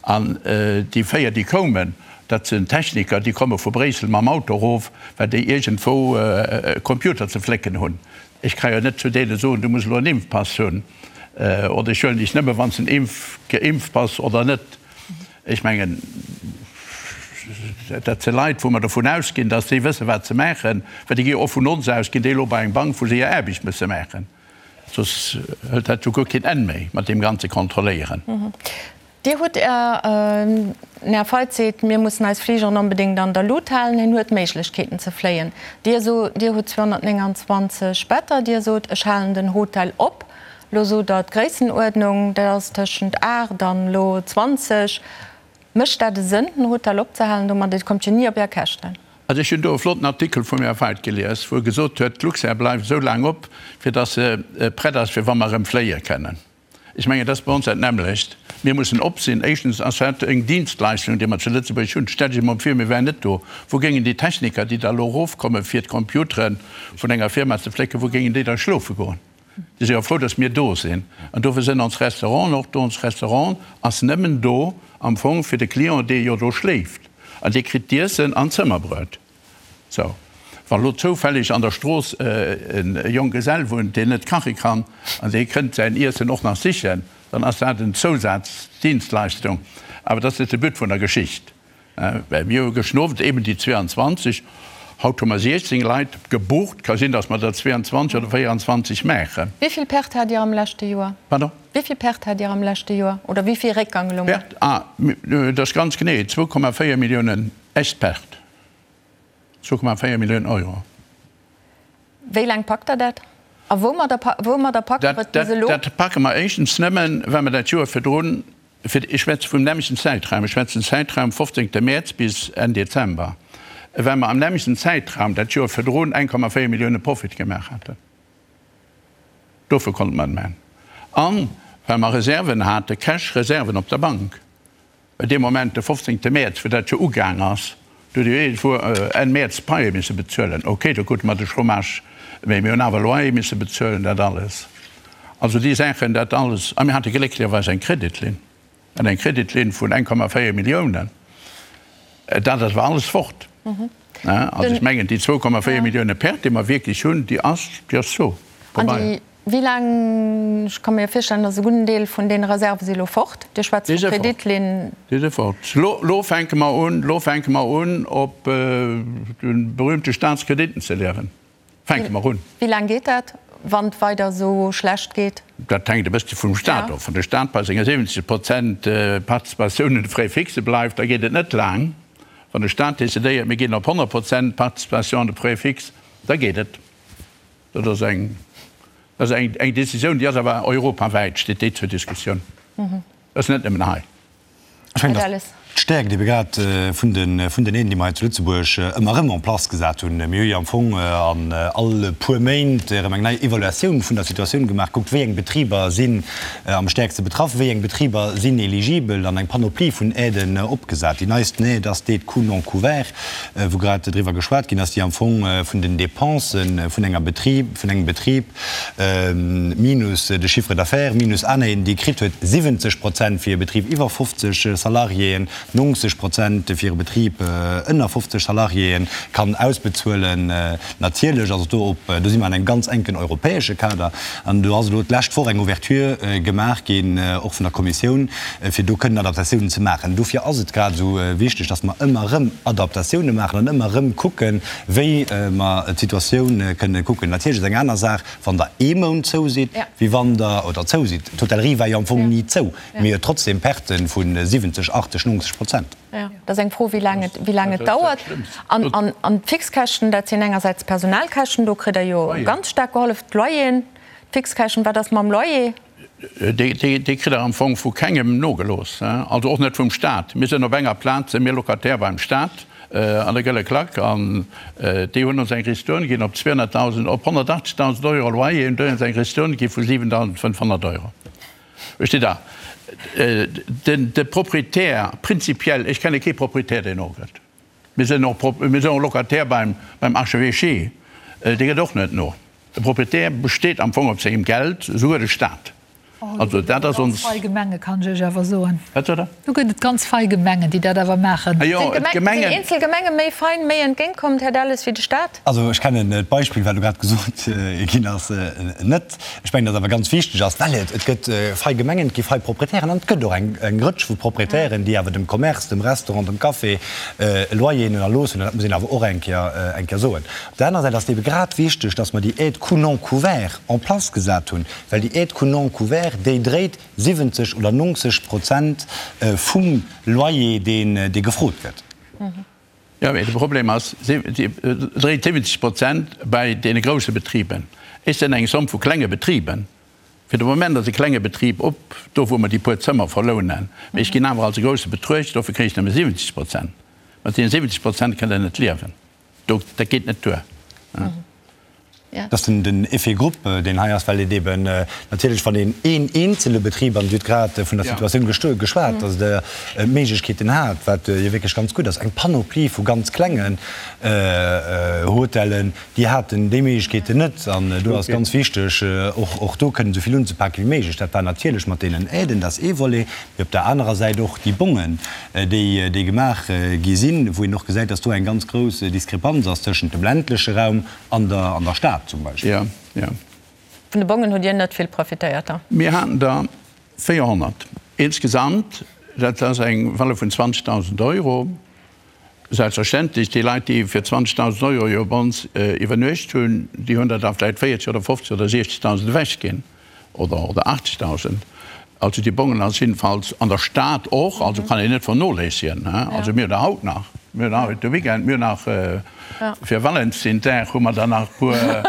An déi 4, déi koumen, dat sinn Techniker, déi komme vu Bréissel mam Auto erof, well déi iergendwou e Computer ze flécken hunn. Ech ka jo net zu deene soen, du muss elo en Impfpass hunn oder ech huelen dech nëmme wann s de en geimpft bass oder net. Ech mengen, dat si Leit, wou mer dovun ausginn, datt déi wëssen, wat se maachen, well déi gi jo och vun ons aus, ginn déi elo bei eng Bank, wou se hir Aarbecht musse maachen. Soss hëlt dat jo guer keen Enn méi mat deem ganze Kontrolléieren. Dir hutt Är, den Här Feith seet, mir mussen eis Fligeren onbedéngt an der Lut halen. Hien huet Méiglechkeeten ze fléien. Dir sot, Dir hutt 229 Better. Dir sot, ech halen den Hotel op. Lo sot Der d'Gréissenuerdnung, dat ass tëschent 8 an elo 20. Mécht dat e Sënn, den Hotel opzehalen domat? Dir kommt jo ni op Är Käschten. Also ech hunn do e flotten Artikel vum Här Feith gelies, wou e gesot huet, d'Luxair bleift esou laang op, fir datt se prett ass, fir wa mer erëm fléie kënnen. Ech mengen, dat ass bei ons dat nämmlecht. Mir mussen op sinn. Éischtens ass dat eng Dienstleistung, déi mer zu Lëtzebuerg hunn. Stellt Iech emol vir, mir wären net do. Wou géingen déi Techniker, déi da elo erofkommen, fir d'Computere vun enger Firma ze flécken, wou géingen déi da schlofe goen? Déi si jo frou, datt mir do sinn. An dofir sinn ons Restauranten och do. Ons Restaurant ass nëmmen do am Fong fir de Client, dee jo do schléift. An dee kritt d'Iessen an d'Zëmmerbruet. Sou, wa lo zoufälleg an der Strooss e Jonggesell wunnt, deen net kache kann, an dee kënnt säin Iessen och nach sichen, dann ass dat en Zousazdienstleistung. Awer dat ass net de But vun der Geschicht. Well mir hu gëschten Owend eben déi 22, haut hu mer 16 Leit gebucht. Ka sinn, datt mer der 22 oder 24 maachen. Wéi vill Perte hat Dir am leschte Joer? Pardon? Wéi vill Perte hat Dir am leschte Joer? Oder wéi vill Réckgang elo mol? Perte? Ah, dat ass ganz genee 2,4 Milliounen echt Perte. 2,4 Milliounen Euro. Wéi laang packt Der dat? A woumadder woumadder packt Der et bis elo? Dat packe mer éischtens nëmmen, well mer dat Joer virdrun, fir, ech schwätze vum nämmlechten Zäitraum, ech schwätzen Zäitraum 15. Mäerz bis Enn Dezember, well mer am nämmlechten Zäitraum dat Joer virdrun 1,4 Millioune Profit gemaach haten. Dofir konnte mer et maachen. An well mer Reserven haten, Cash-Reserven op der Bank. Well dee Moment, de 15 Mäerz, wou dat jo ugaang ass, do huet jo iergendwou Enn Mäerz d'Paie misse bezuelen. Okay, do krute mer de Chômage, mee mir hunn awer Loyer misse bezuelen, dat alles. Also déi Saachen, dat alles. A mir hate glécklecherweis eng Kreditlinn, an eng Kreditlinn vun 1,4 Milliounen. Dat ass awer alles fort. Also ech mengen, déi 2,4 Millioune Perte, déi mer wierklech hunn, déi ass, déi ass zo vorbei. Wéi laang, ech ka mir jo virstellen, datt e gudden Deel vun deene Reserve si lo fort. Dir schwätzt vu Kreditlinn. Déi si fort. Lo fänke mer un, lo fänke mer un, op de berühmte Staatskrediten ze liewen. Fänke mer un. Wéi laang geet dat, wann et weider esou schlecht geet? Dat hänkt e bëssche vum Staat of. Wann de Staat bei senge 70 Prozent Participatioun un de Frais fixe bleift, da geet et net laang. Wann de Staat decidéiert, mir ginn op 100 Prozent Participation an de Frais fixe, da geet et. Dat ass eng, dat ass eng, eng Décisioun, déi ass awer europawäit, steet déi zur Diskussioun. Dat ass net nëmmen hei. Ech mengen, datt d'Stäerkt ebe grad vun de, vun den Aiden, déi mer hei zu Lëtzebuerg ëmmer erëm en place gesat hunn. Mir hu jo am Fong an all puer Méint erëm eng nei Evaluatioun vun der Situatioun gemaach, kuckt, wéi eng Betriber sinn am stäerkste betraff, wéi eng Betriber sinn eligibel an eng Panoplie vun Aiden opgesat. Déi neisten Aide ass d'Aide coûts non couverts, wou grad driwwer geschwat ginn ass, déi am Fong vun den Dépensen vun enger Betrib, vun engem Betrib minus de Chiffre d'affaires minus aner Aiden, déi e kritt huet, 70 Prozent fir e Betrib iwwer 50 Salariéen. 90 Prozent fir e Betrib ënner 50 Salariéen kann ausbezuelen. Natierlech ass et do op, do si mer an engem ganz enken europäesche Kader an do ass elo d'lescht Woch eng Ouverture gemaach ginn, och vun der Kommissioun, fir do kënnen Adaptatiounen ze maachen. Dofir ass et grad esou wichteg, dass mer ëmmer erëm Adaptatioune maachen an ëmmer erëm kucken, wéi mer d'Situatioun kënnen kucken. Natierlech ass eng aner Saach, wann Der ee Mount zou sidd, wéi wann Der, oder zou sidd, d'Hotellerie war jo am Fong ni zou, mee huet trotzdem Perten vu 70, 80, 90 Prozent. Jo, dat ass eng Fro, wéi laang et, wéi laang et dauert. An, an, an d'Fixkäschten, dat sinn engersäits d'Personalkäschten, do kritt Der jo ganz staark gehollef, d'Loyeren, d'Fixkäschten, wat ass mam Loyer? Dee kritt Der am Fong vu kengem nogelooss, also och net vum Stat. Mir sinn op enger Plaz, si mir Locataire beim Stat an der Gëlle Klack an déi hunn ons eng Ristourne ginn op 200.000, op 180.000 Euro Loyer hunn déi ons eng Ristourne gi vu 7.500 Euro. Versteet Der? De Proprietär prinzipiell, ech kenne kee Proprietär, deen nogëtt. Mir sinn och, mir sinn och Locataire beim, beim Archevêché, dee gëtt och net no. De Proprietär besteet am Fong op sengem Geld, esouguer de Stat. Also dat ass ons. Do gëtt et ganz fei Gemenge, kann ech Iech awer soen. Wat sot Der? Do gëtt et ganz fei Gemengen, déi dat awer maachen. Ah jo, d'Gemengen. Sinn eenzel Gemenge méi fein, méi entgéintkommend, Här Delles, wéi de Stat? Also ech kennen d'Beispill, wat elo grad gesot ginn ass, net. Ech mengen, datt awer ganz wichteg ass, well et et gëtt fei Gemengen, et gi fei Proprietären an et gëtt och eng eng Rëtsch vu Proprietären, déi awer dem Commerce, dem Restaurant, dem Café Loyeren erlooss hunn. An dat muss een awer och eng Kéier eng Kéier soen. Op der anerer Säit ass et ebe grad wichteg, datt mer déi Aide coût non couvert en place gesat hunn, well déi Aide coût non couvert, déi dréit 70 oder 90 Prozent vum Loyer, deen dee gefrot gëtt. Jo, mee de Problem ass, si dréit 70 Prozent bei deene grousse Betriben. Ech sinn eng Somm vu klenge Betriben. Fir de Moment ass e klenge Betrib op, do wou mer déi puer Zëmmer verlounen. Mee ech ginn awer als e grousse betruecht, dofir kréien ech nëmme 70 Prozent. Mat deene 70 Prozent kënnt Der net liewen. Do, dat geet net duer. Dat ass den Effet groupe, deen hei ass, well et eben natierlech, wann een een eenzele Betrib, an Dir hutt grad vun der Situatioun geschwat, datt Der d'Méiglechkeeten hat, wat jo wierklech ganz gutt ass, eng Panoplie vu ganz klengen Hotellen, déi haten déi Méiglechkeeten net. An do ass ganz wichteg, och do kënnen esou vill unzepake wéi méiglech. Dat war natierlech mat deenen Aiden, dat ass ee Volet. Mee op der anerer Säit och déi Bongen, déi déi gemaach gi sinn, wou een och gesäit, dass do eng ganz grouss Diskrepanz ass tëschent dem ländleche Raum an der an der Stad zum Beispill. Jo, jo. Vun de Bongen hutt Dir net vill profitéiert da? Mir haten der 400 insgesamt, dat ass eng Valeur vun 20.000 Euro. Selbstverständlech, déi Leit, déi fir 20.000 Euro jo bei ons iwwernuecht hunn, déi hunn der da vläicht 40 oder 50 oder 60.000 ewechginn oder oder 80.000. Also déi Bongen ass jiddefalls an der Stad och, also kann een net vernoléissegen. Also mir hunn der haut nach, mir hunn haut de Weekend, mir hunn nach fir Valentinsdag hu mer der nach e puer,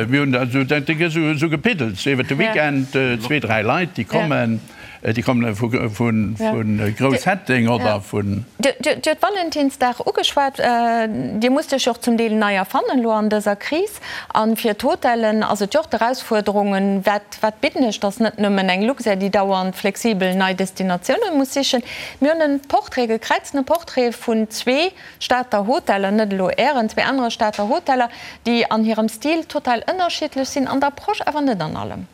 mir hunn der esou, dat gëtt esou gepiddelt iwwert de Weekend, zwee, dräi Leit, déi kommen. Déi kommen vu Grousshetteng oder vun. Dir hutt Valentinsdag ugeschwat. Dir musst Iech jo och zum Deel nei erfannen elo an dëser Kris. A fir d'Hotellen ass et jo och d'Erausfuerderung, wat, wat bidden ech? Dass net nëmmen eng Luxair, déi dauernd flexibel nei Destinatiounen muss sichen. Mir hunn e Portrait, e gekräiztene Portrait vun zwee Stater Hoteller, net elo Ären, zwee anere Stater Hoteller, déi an hirem Stil total ënnerschiddlech sinn, an der Approche awer net an allem.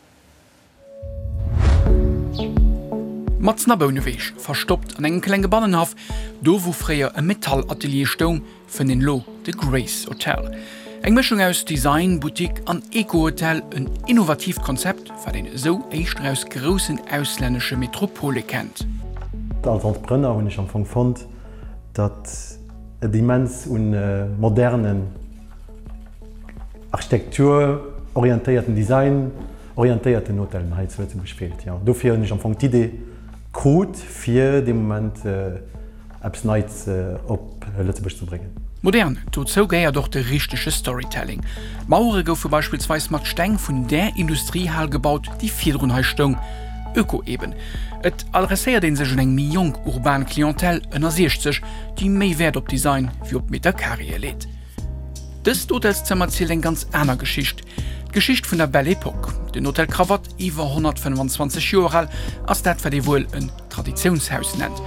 Matzen a Bouneweg, verstoppt an engem klenge Bannenhaff, do wou fréier e Metallatelier stoung, fënnt een elo de Grace Hotel. Eng Mëschung aus Design, Boutique an Eco-Hotel, en innovatiivt Konzept, wat een esou éischter aus groussen auslännesche Metropole kennt. Als Entrepreneur hunn ech am Fong fonnt, datt et immens un modernen, architekturorientéierten, designorientéierten Hotellen hei zu Lëtzebuerg feelt. Jo, dofir hunn ech am Fong d'Idee krut, fir dee Moment eppes Neits op Lëtzebuerg ze bréngen. Modern, dozou gehéiert och de richtege Storytelling. D'Mauere goufe beispillsweis mat Steng vun där Industriehal gebaut, déi virdrun hei stoung. Öko eben. Et adresséiert ee sech un eng méi jonk urban Clientèle ënner 60, déi méi Wäert op Design wéi op Meterkareeë leet. Dëst Hotelszëmmer zielt eng ganz aner Geschicht, d'Geschicht vun der Belle Epoque. Den Hotel Cravatte, iwwer 125 Joer al, ass dat wat ee wuel en Traditiounshaus nennt.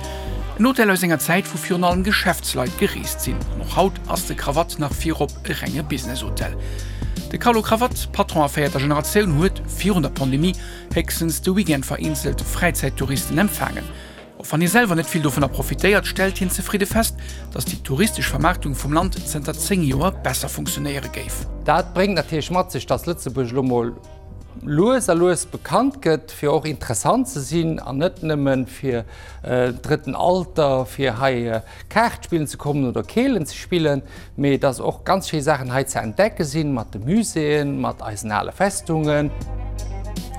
En Hotel aus enger Zäit, wou virun allem Geschäftsleit gereest sinn. An och haut ass de Cravatte nach virop e renge Businesshotel. De Carlo Cravatte, Patron a véierter Generatioun, huet virun der Pandemie héchstens de Weekend vereenzelt Fräizäittouristen empfaangen. Och wann hie selwer net vill dovunner profitéiert, stellt hien zefridde fest, datt déi touristesch Vermaartung vum Land zënter 10 Joer besser funktionéiere géif. Dat bréngt natierlech mat sech, datt Lëtzebuerg elo mol lues a lues bekannt gëtt, fir och interessant ze sinn an net nëmme fir drëtten Alter, fir hei Kaart spillen ze kommen oder Keelen ze spillen, mee dass och ganz schéi Saachen hei ze entdecke sinn, mat de Muséeën, mat eisen ale Festungen.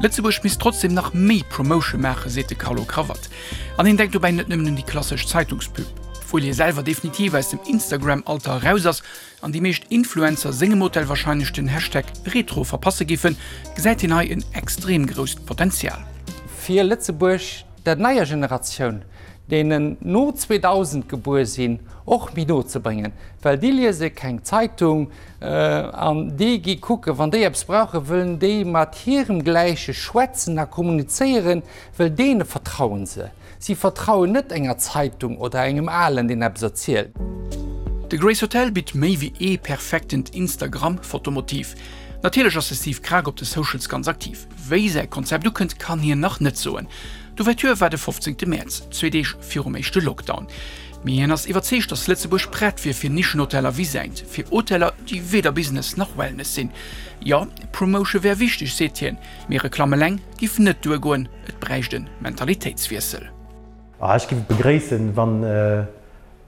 Lëtzebuerg misst trotzdem nach méi Promotion maachen, seet de Carlo Cravat. An hien denkt dobäi net nëmmen un déi klassesch Zeitungspub. Obwuel hie selwer definitiv aus dem Instagram-Alter eraus ass an déi meescht Influencer sengem Hotel warscheinlech den Hashtag Retro verpasse giffen, gesäit hien hei en extrem grousst Potenzial. Fir Lëtzebuerg der neier Generatioun, deenen no 2000 gebuer sinn, och méi no ze bréngen, well déi liese keng Zeitung an déi gi kucken, wann déi eppes brauchen, wëllen déi mat hirem Gläiche schwätzen a kommunizéieren, well deene vertrauen se. Si vertrauen net enger Zeitung oder engem Alen, deen eppes erzielt. De Grace Hotel bitt méi wéi ee perfektent Instagram-Fotomotiv. Natierlech ass de Steve Krag op de Socials ganz aktiv. Wéi säi Konzept ukënnt, kann hien nach net soen. D'Ouverture war de 15 Mäerz, zwee Deeg virum éischte Lockdown. Mee hien ass iwwerzeegt, datt Lëtzebuerg prett wier fir Nischenhoteller wéi säint, fir Hoteller, déi weder Business nach Wellness sinn. Jo, Promotion wär wichteg, seet hien, mee Reklamm eleng giff net duergoen, et bräicht e Mentalitéitswiessel. Ech giff et begréissen, wann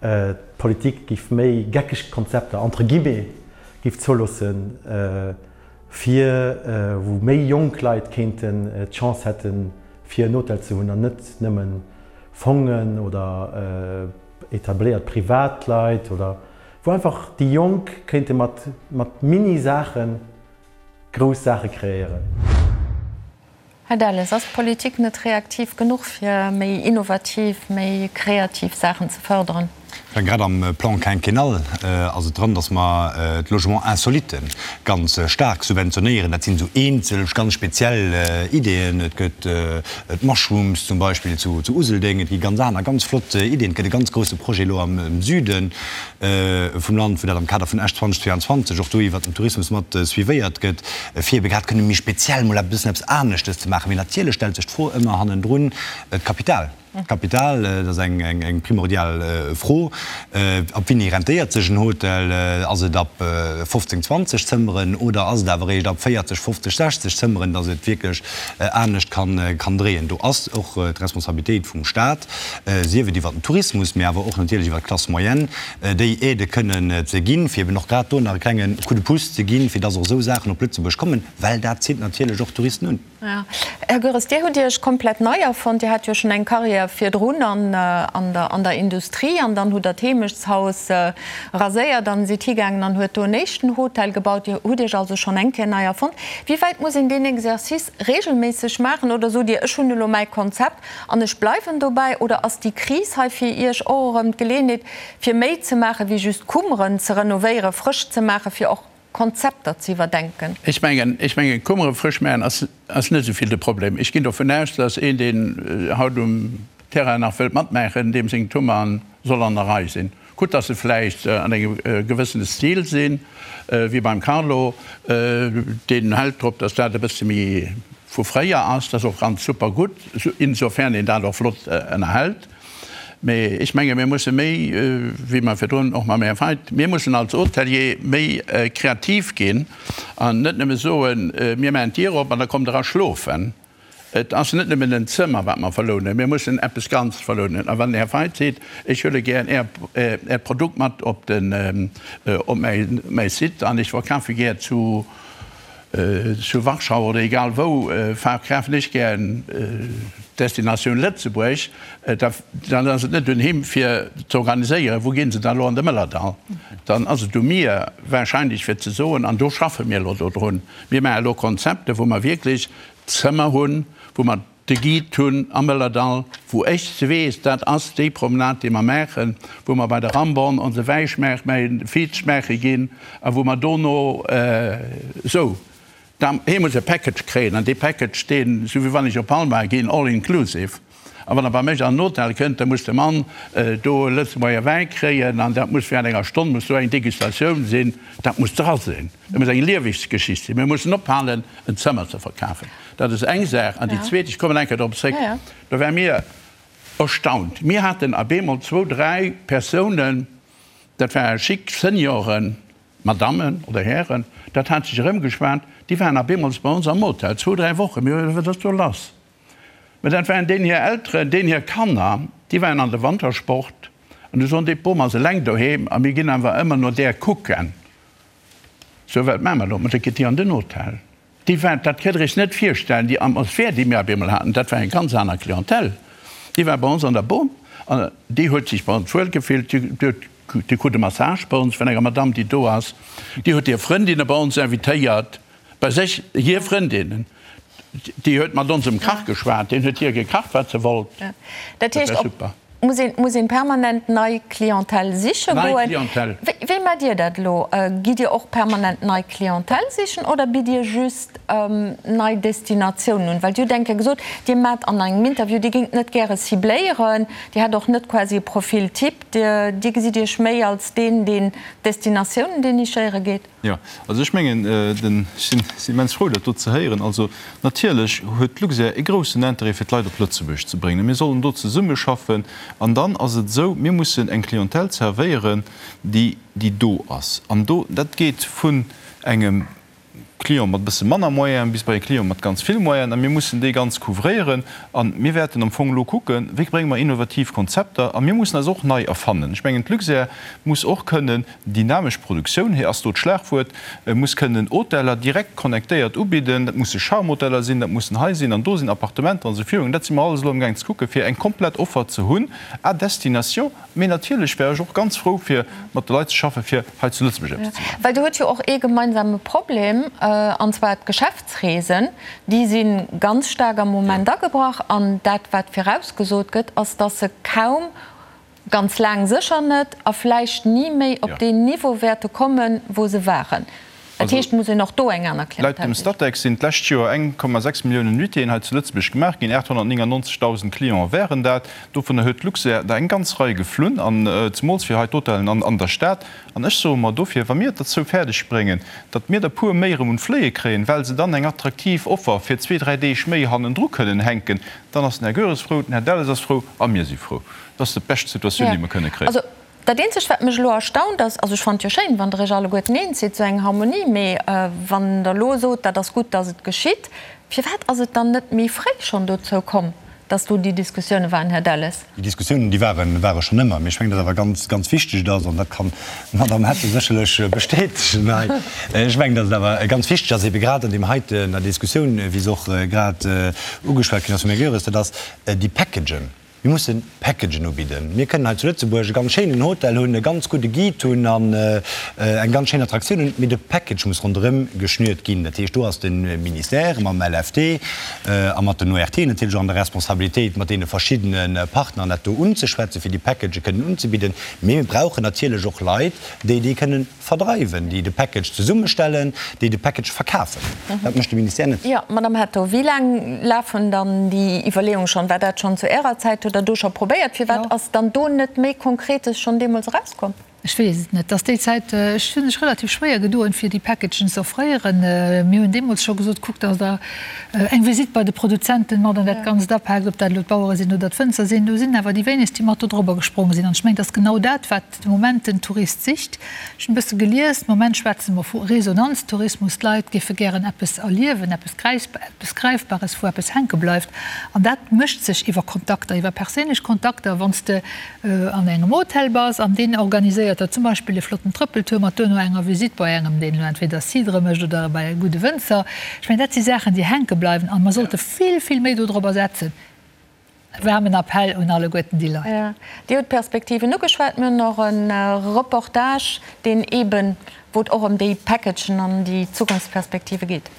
d'Politik giff méi geckeg Konzepter, entre guillemets, giff zouloossen, fir wou méi jonk Leit kéinten d'Chance hätten, fir en Hotel ze hunn an net nëmmen Fongen oder etabléiert Privatleit oder wou einfach déi Jonk kéinte mat mat Mini-Saache grouss Saache kreéieren. Här Delles, ass d'Politik net reaktiv genuch fir méi innovativ, méi kreativ Saachen ze fërderen? Grad am Plan quinquennal ass et dran, dass mer d'Logements insolites ganz staark subventionéieren. Dat sinn esou eenzel, ganz speziell Ideeën. Et gëtt d'Mushrooms zum Beispill zu Useldeng. Et gi ganz aner, ganz flott Ideeën. Et gëtt e ganz grousse Projet elo am Süde vum Land, wou dat am Kader vun Esch 2022 och do iwwert den Tourismus mat suivéiert gëtt, fir ebe grad kënne méi speziell mol e bëssen eppes aneschtes ze maachen. Mee natierlech stellt sech d'Fro ëmmer hannendrun, d'Kapital. D'Kapital, dat ass eng primordial Fro. Ab wéini rentéiert sech en Hotel? Ass et ab 15, 20 Zëmmeren oder ass et awer eréischt ab 40, 50, 60 Zëmmeren, datt et wierklech anescht kann dréien? Do ass och d'Responsabilitéit vum Staat, sief et iwwer den Tourismus, mee awer och natierlech iwwer d'Classe moyenne, déi Aidë kënnen ze ginn, fir eben och grad do nach e klenge Coup de pouce ze ginn, fir datt och esou Saachen op Lëtzebuerg kommen, well dat zitt natierlech och Touristen un. Här Goeres, Dir hutt Iech komplett nei erfonnt. Dir hat jo schonn eng Karriär virdrun an der Industrie an dann hutt Der d'Heemechtshaus raséiert an sidd higaangen an huet do en éischten Hotel gebaut. Dir hutt Iech also schonn eng Kéier nei erfonnt. Wéi wäit muss een deen Exercice reegelméisseg maachen oder sot Dir, ech hunn elo mäi Konzept an ech bleiwen dobäi? Oder ass déi Kris hei fir Iech och erëm d'Geleeënheet, fir méi ze maachen, wéi just Kummeren ze renovéieren, frësch ze maachen, fir och Konzepter ze iwwerdenken. Ech mengen, ech mengen, Kummere frësch maachen ass, ass net esou vill de Problem. Ech ginn dovun aus, dass een, deen haut um Terrain nach wëllt matmaachen, deem seng Kummern soll an der Rei sinn. Gutt, dass se vläicht an engem gewëssene Stil sinn, wéi beim Carlo, deen hält drop, dass dat e bësse méi vu fréier ass. Dat ass och ganz super gutt, insofern een dat och flott ënnerhält. Mee ech menge mir musse méi, wéi mer virdrun och mam Här Feidt, mir mussen als Hotelier méi kreativ ginn an net nëmme soen, mir maachen d'Dier op an da kommt Der a schlofen. Et ass net nëmmen en Zëmmer, wat mer verlounen, mir mussen eppes Ganzes verlounen. A wann den Här Feidt seet, ech huele gär Äert Produkt mat op mäi Site an ech verkafe gär zu, Zu Warschau oder egal wou verkafen ech gären Destinatioun Lëtzebuerg, dann ass et net un him fir ze organiséieren, wou ginn se dann elo an de Mëllerdall. Dann ass et u mir wahrscheinlech fir ze soen, an do schaffe mir elo dodrun, mir maache elo Konzepte wou mer wierklech Zëmmer hunn, wou mer de Guide hunn am Mëllerdall, wou ech se weess, dat ass déi Promenade, déi mer maachen, wou mer bei de Ramborn onse Wäi schmaache, mäi Viz schmaache ginn a wou mer dono esou, da, hie muss e Package kréien an dee Package, deen, esou wéi wann ech op Palma ginn, all inclusive. A wann e bei mech an den Hotel kënnt, da muss de Mann do e Lëtzebuerger Wäi kréien an dat muss während enger Stonn muss do eng Degustatioun sinn, dat muss dra sinn. Dat muss eng Lieweggeschicht sinn. Mir mussen ophalen, en Zëmmer ze verkafen. Dat ass eng Saach. An déi zweet, ech kommen eng Kéier drop zréck, do war mir. Erstaunt. Mir haten ab eemol zwou, dräi Persounen, dat ware chic Senioren, Madammen oder Hären, dat hat sech erëmgeschwat, déi waren ab eemol bei ons am Hotel, zwou, dräi Wochen. Mir hu gesot, Wat ass do lass? Mä dat waren deenen hir Elteren, deenen hir Kanner, déi waren an de Wantersport an du soen déi, d'Bom ass eleng doheem a mir ginn awer ëmmer no där kucken. Sou, wat maache mer elo? Ma da gitt Dir an den Hotel. Déi war, dat kënnt Der Iech net virstellen, déi Atmosphär, déi mir op eemol haten, dat war eng ganz aner Clientèle. Déi war bei ons an der Bom an déi huet sech bei ons wuel gefillt. Déi huet, déi krut e Massage bei ons vun enger Madame, déi do ass. Déi huet hir Frëndinne bei ons invitéiert, bei sech, hir Frëndinnen. Déi huet mat onsem Kach geschwat, deen huet hir gekacht, wat se wollt. Dat heescht, op muss een, muss een permanent nei Clientèle siche Nei goen. Clientèle. Wéi, wéi maacht Dir dat elo? Gitt Dir och permanent nei Clientèle sichen oder bitt Dir just nei Destinatiounen un? Well Dir hutt eng Kéier gesot, Dir maacht an engem Interview, Dir géingt net gäre cibléieren, Dir hätt och net quasi e Profil type, Dir, Dir gesitt Iech méi als deen, deen Destinatiounen dénichéiere geet. Jo, also ech mengen, den, ech sinn immens frou, dat do ze héieren. Also natierlech huet d'Luxair e groussen Intérêt, fir d'Leit op Lëtzebuerg ze bréngen. Mir sollen do zesummeschaffen. An dann ass et esou, mir mussen eng Clientèle zerwéieren, déi, déi do ass. An do, dat geet vun engem Client mat e bësse manner Moyenen bis bei e Client mat ganz vill Moyenen. A mir mussen déi ganz couvréieren. A mir wäerten am Fong elo kucken, wéi brénge mer innovativ Konzepter. A mir mussen eis och nei erfannen. Ech mengen, d'Luxair muss och kënnen Dynamesch Produktioun, hei ass do d'Schlagwuert, muss kënnen Hoteller direkt connectéiert ubidden. Dat musse Charme-Hoteller sinn, dat mussen hei sinn an do sinn, Appartementer an esou virun. Dat si mer alles elo amgaang ze kucken, fir eng komplett Offer ze hunn à destination. Mee natierlech wär ech och ganz frou, fir mat de Leit ze schaffen, fir hei zu Lëtzebuerg eppes ze maachen. Well Dir hutt jo och ee gemeinsame Problem, an zwar d'Geschäftsreesen. Déi si ganz staark am Moment agebrach. An dat, wat virausgesot gëtt, ass, dass se kaum Ganz laang sécher net a vläicht ni méi op deen Niveau wäerte kommen, wou se waren. Dat heescht, et muss een och do eng aner Laut Clientèle dem sichen. Statec sinn d'lescht Joer 1,6 Milliounen Nuitéen hei zu Lëtzebuerg gemaach ginn, 899.000 Cliente wären dat. Dovunner huet d'Luxair der eng ganz Rei geflunn, an zemools fir hei d'Hotellen an der Stad. An ech soe mer dofir, wa mir et derzou fäerdeg bréngen, datt mir der puer méi erëm un d'Fléie kréien, well se dann eng attraktiv Offer fir zwee, dräi Deeg méi hannendru kënnen hänken, dann ass den Här Goeres frou, den Här Delles ass frou a mir si frou. Dat ass déi bescht Situatioun, déi mer kënne kréien. Also, dat Eenzegt, wat mech elo erstaunt, ass, also ech fannen et jo schéin, wann Der Iech alleguerten eens sidd, esou eng Harmonie, mee wann Der elo sot, dat ass gutt, datt et geschitt, firwat ass et dann net méi fréi schonn dozou komm, datt do déi Diskussioune waren, Här Delles? Déi Diskussiounen, déi waren, ware schonn ëmmer. Mee ech mengen, datt awer ganz, ganz wichteg et ass, an dat kann d'Madame Hetto sécherlech bestätegen hei, ech mengen, datt et awer ganz wichteg ass, ebe grad an deem heiten, der Diskussioun, wéi se och grad ugeschwat ginn ass vum Här Goeres, dat ass déi Packagen. Mir mussen Packagen ubidden. Mir kënnen hei zu Lëtzebuerg e ganz schéinen Hotel hunn, e ganz gudde Guide hunn an eng ganz schéin Attraktioun hunn, mee de Package muss ronderëm geschnürt ginn. Dat heescht, do ass de Ministère mam LFT a mat den ORT natierlech och an der Responsabilitéit, mat deene verschiddene Partneren dat do unzeschwätzen, fir déi Packagë kënnen unzebidden. Mee mir brauchen natierlech och Leit, déi déi kënnen Verdreiwen, déi de Package zesummestellen, déi de Package verkafen. Dat mécht de Ministère net. Jo, Madame Hetto, wéi laang lafen dann déi Iwwerleeunge schonn? War dat schonn zu Ärer Zäit? Hutt Der do scho probéiert? Firwat ass dann do net méi Konkretes schonn deemools erauskomm? Ech weess et net. Dass déi Zäit, ech hu mech relativ schwéier gedoen, fir déi Packagen ze offréieren. Mir hunn deemools scho gesot, Kuckt, dass Der eng Visitt bei de Produzenten mat an dat Ganzt apaakt, ob dat elo d'Bauere sinn oder d'Wënzer sinn. Do sinn awer déi wéinegst, déi mat do drobber gespronge sinn. An ech mengen, et ass genau dat, wat De Moment den Tourist sicht. Ech hunn e bësse gelies, de Moment schwätze mer vu Resonanztourismus, d'Leit géife gären eppes erliewen, eppes eppes Gräifbares, wou eppes hänke bleift. An dat mécht sech iwwer Kontakter, iwwer perséinlech Kontakter. Wann s de an engem Hotel bass an deen organiséiert der zum Beispill e flotten Trëppeltour mat duerno enger Visitt bei engem, deen elo entweder Cidre mécht oder bei e gudde Wënzer. Ech mengen, dat si Saachen, déi hänke bleiwen a mer sollte vill, vill méi dodrobber setzen. E waarmen Appell un alleguerten déi Leit. Dir hutt d'Perspektiven ugeschwat. Mir hunn och e Reportage, deen eeben, wou et och ëm déi Packagen an déi Zukunftsperspektive geet.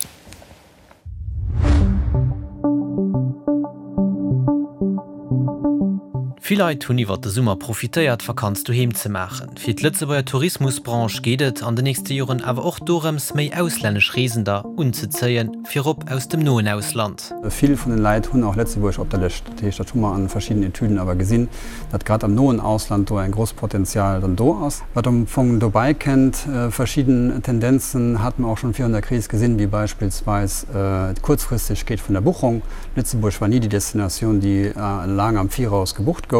Vill Leit hunn iwwert de Summer profitéiert, Vakanz doheem ze maachen. Fir d'Lëtzebuerger Tourismusbranche geet et an de nächste Joren awer och dorëms, méi auslännesch Reesender unzezéien, virop aus dem noen Ausland. Vill vun den Leit hunn och Lëtzebuerg op der Lëscht. Dat heescht, dat hu mer an verschiddenen Etüden awer gesinn, datt grad am noen Ausland do eng gross Potenzial dann do ass. Wat am Fong dobäi kennt, verschidden Tendenzen hate mer och schonn virun der Kris gesinn, wéi beispillsweis d'Kuerzfristegkeet vun der Buchung. Lëtzebuerg war ni déi Destinatioun, déi laang am Viraus gebucht gouf.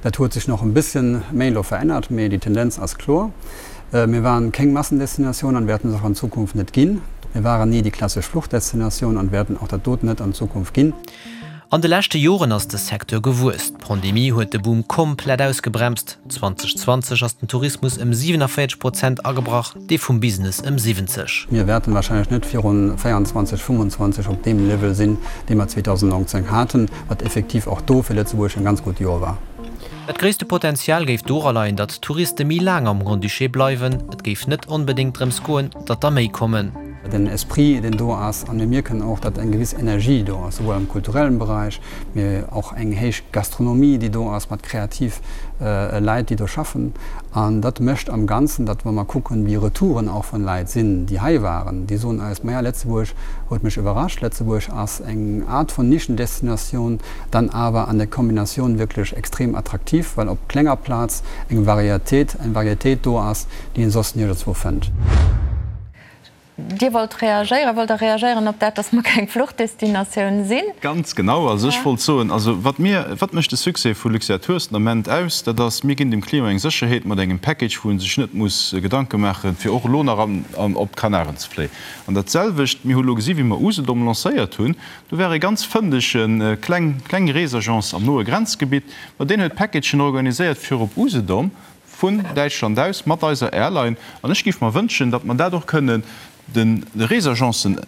Dat huet sech nach e bësschen méi elo verännert, mee déi Tendenz ass kloer. Mir waren kéng Massendestinatioun an wäerten es och an Zukunft net ginn. Mir waren ni déi klassesch Fluchdestinatioun an wäerten och dat doten net an Zukunft ginn. An de leschte Joren ass de Secteur gewuess. D'Pandemie huet de Boom komplett ausgebremst. 2020 ass den Tourismus ëm 47 Prozent agebrach, dee vum Business ëm 70. Mir wäerten wahrscheinlech net virun 24, 25 op deem Level sinn, dee mer 2019 haten, wat effektiv och do fir Lëtzebuerg en ganz gutt Joer war. Dat gréisste Potenzial géif dora leien, datt d'Touriste méi laang am Grand-Duché bleiwen. Et géif net onbedéngt drëms goen, datt der méi kommen. Den Esprit, deen do ass, a mir mierken och, datt eng gewiss Energie do ass, souwuel am kulturellen Beräich, mee och eng héich Gastronomie, déi do ass, mat kreativ Leit, déi do schaffen. An dat mécht am Ganzen, datt, wa mer kucken, wéi Retouren och vun Leit sinn, déi hei waren, déi soen eis, Maja, Lëtzebuerg huet mech iwwerrascht, Lëtzebuerg ass eng Art vun Nischendestinatioun, dann awer an der Kombinatioun wierklech extrem attraktiv, well op klenger Plaz eng Varietéit, eng Varietéit do ass, déi een soss niergendswou fënnt. Dir wollt reagéieren. Wollt Der reagéieren op dat, dass mer keng Fluchdestinatioun sinn? Ganz genau. Also ech wollt soen, also wat mir, wat mécht de Succès vu Luxair Tours den Ament aus, dat ass, mir ginn dem Client eng Sécherheet mat engem Package, wou e sech net muss Gedanke maachen, fir och elo nach an, op d'Kanaren ze fléien. An dat selwecht, mir hu elo gesi wéi mer Usedom lancéiert hunn, do war e ganz fëndege kleng, kleng Reesagence am noe Grenzgebitt, ma deen huet Packagen organiséiert fir op Usedom, vun Däitschland aus mat eiser Airline. An ech géif mer wënschen, datt mer dat och kënnen de Reesagencen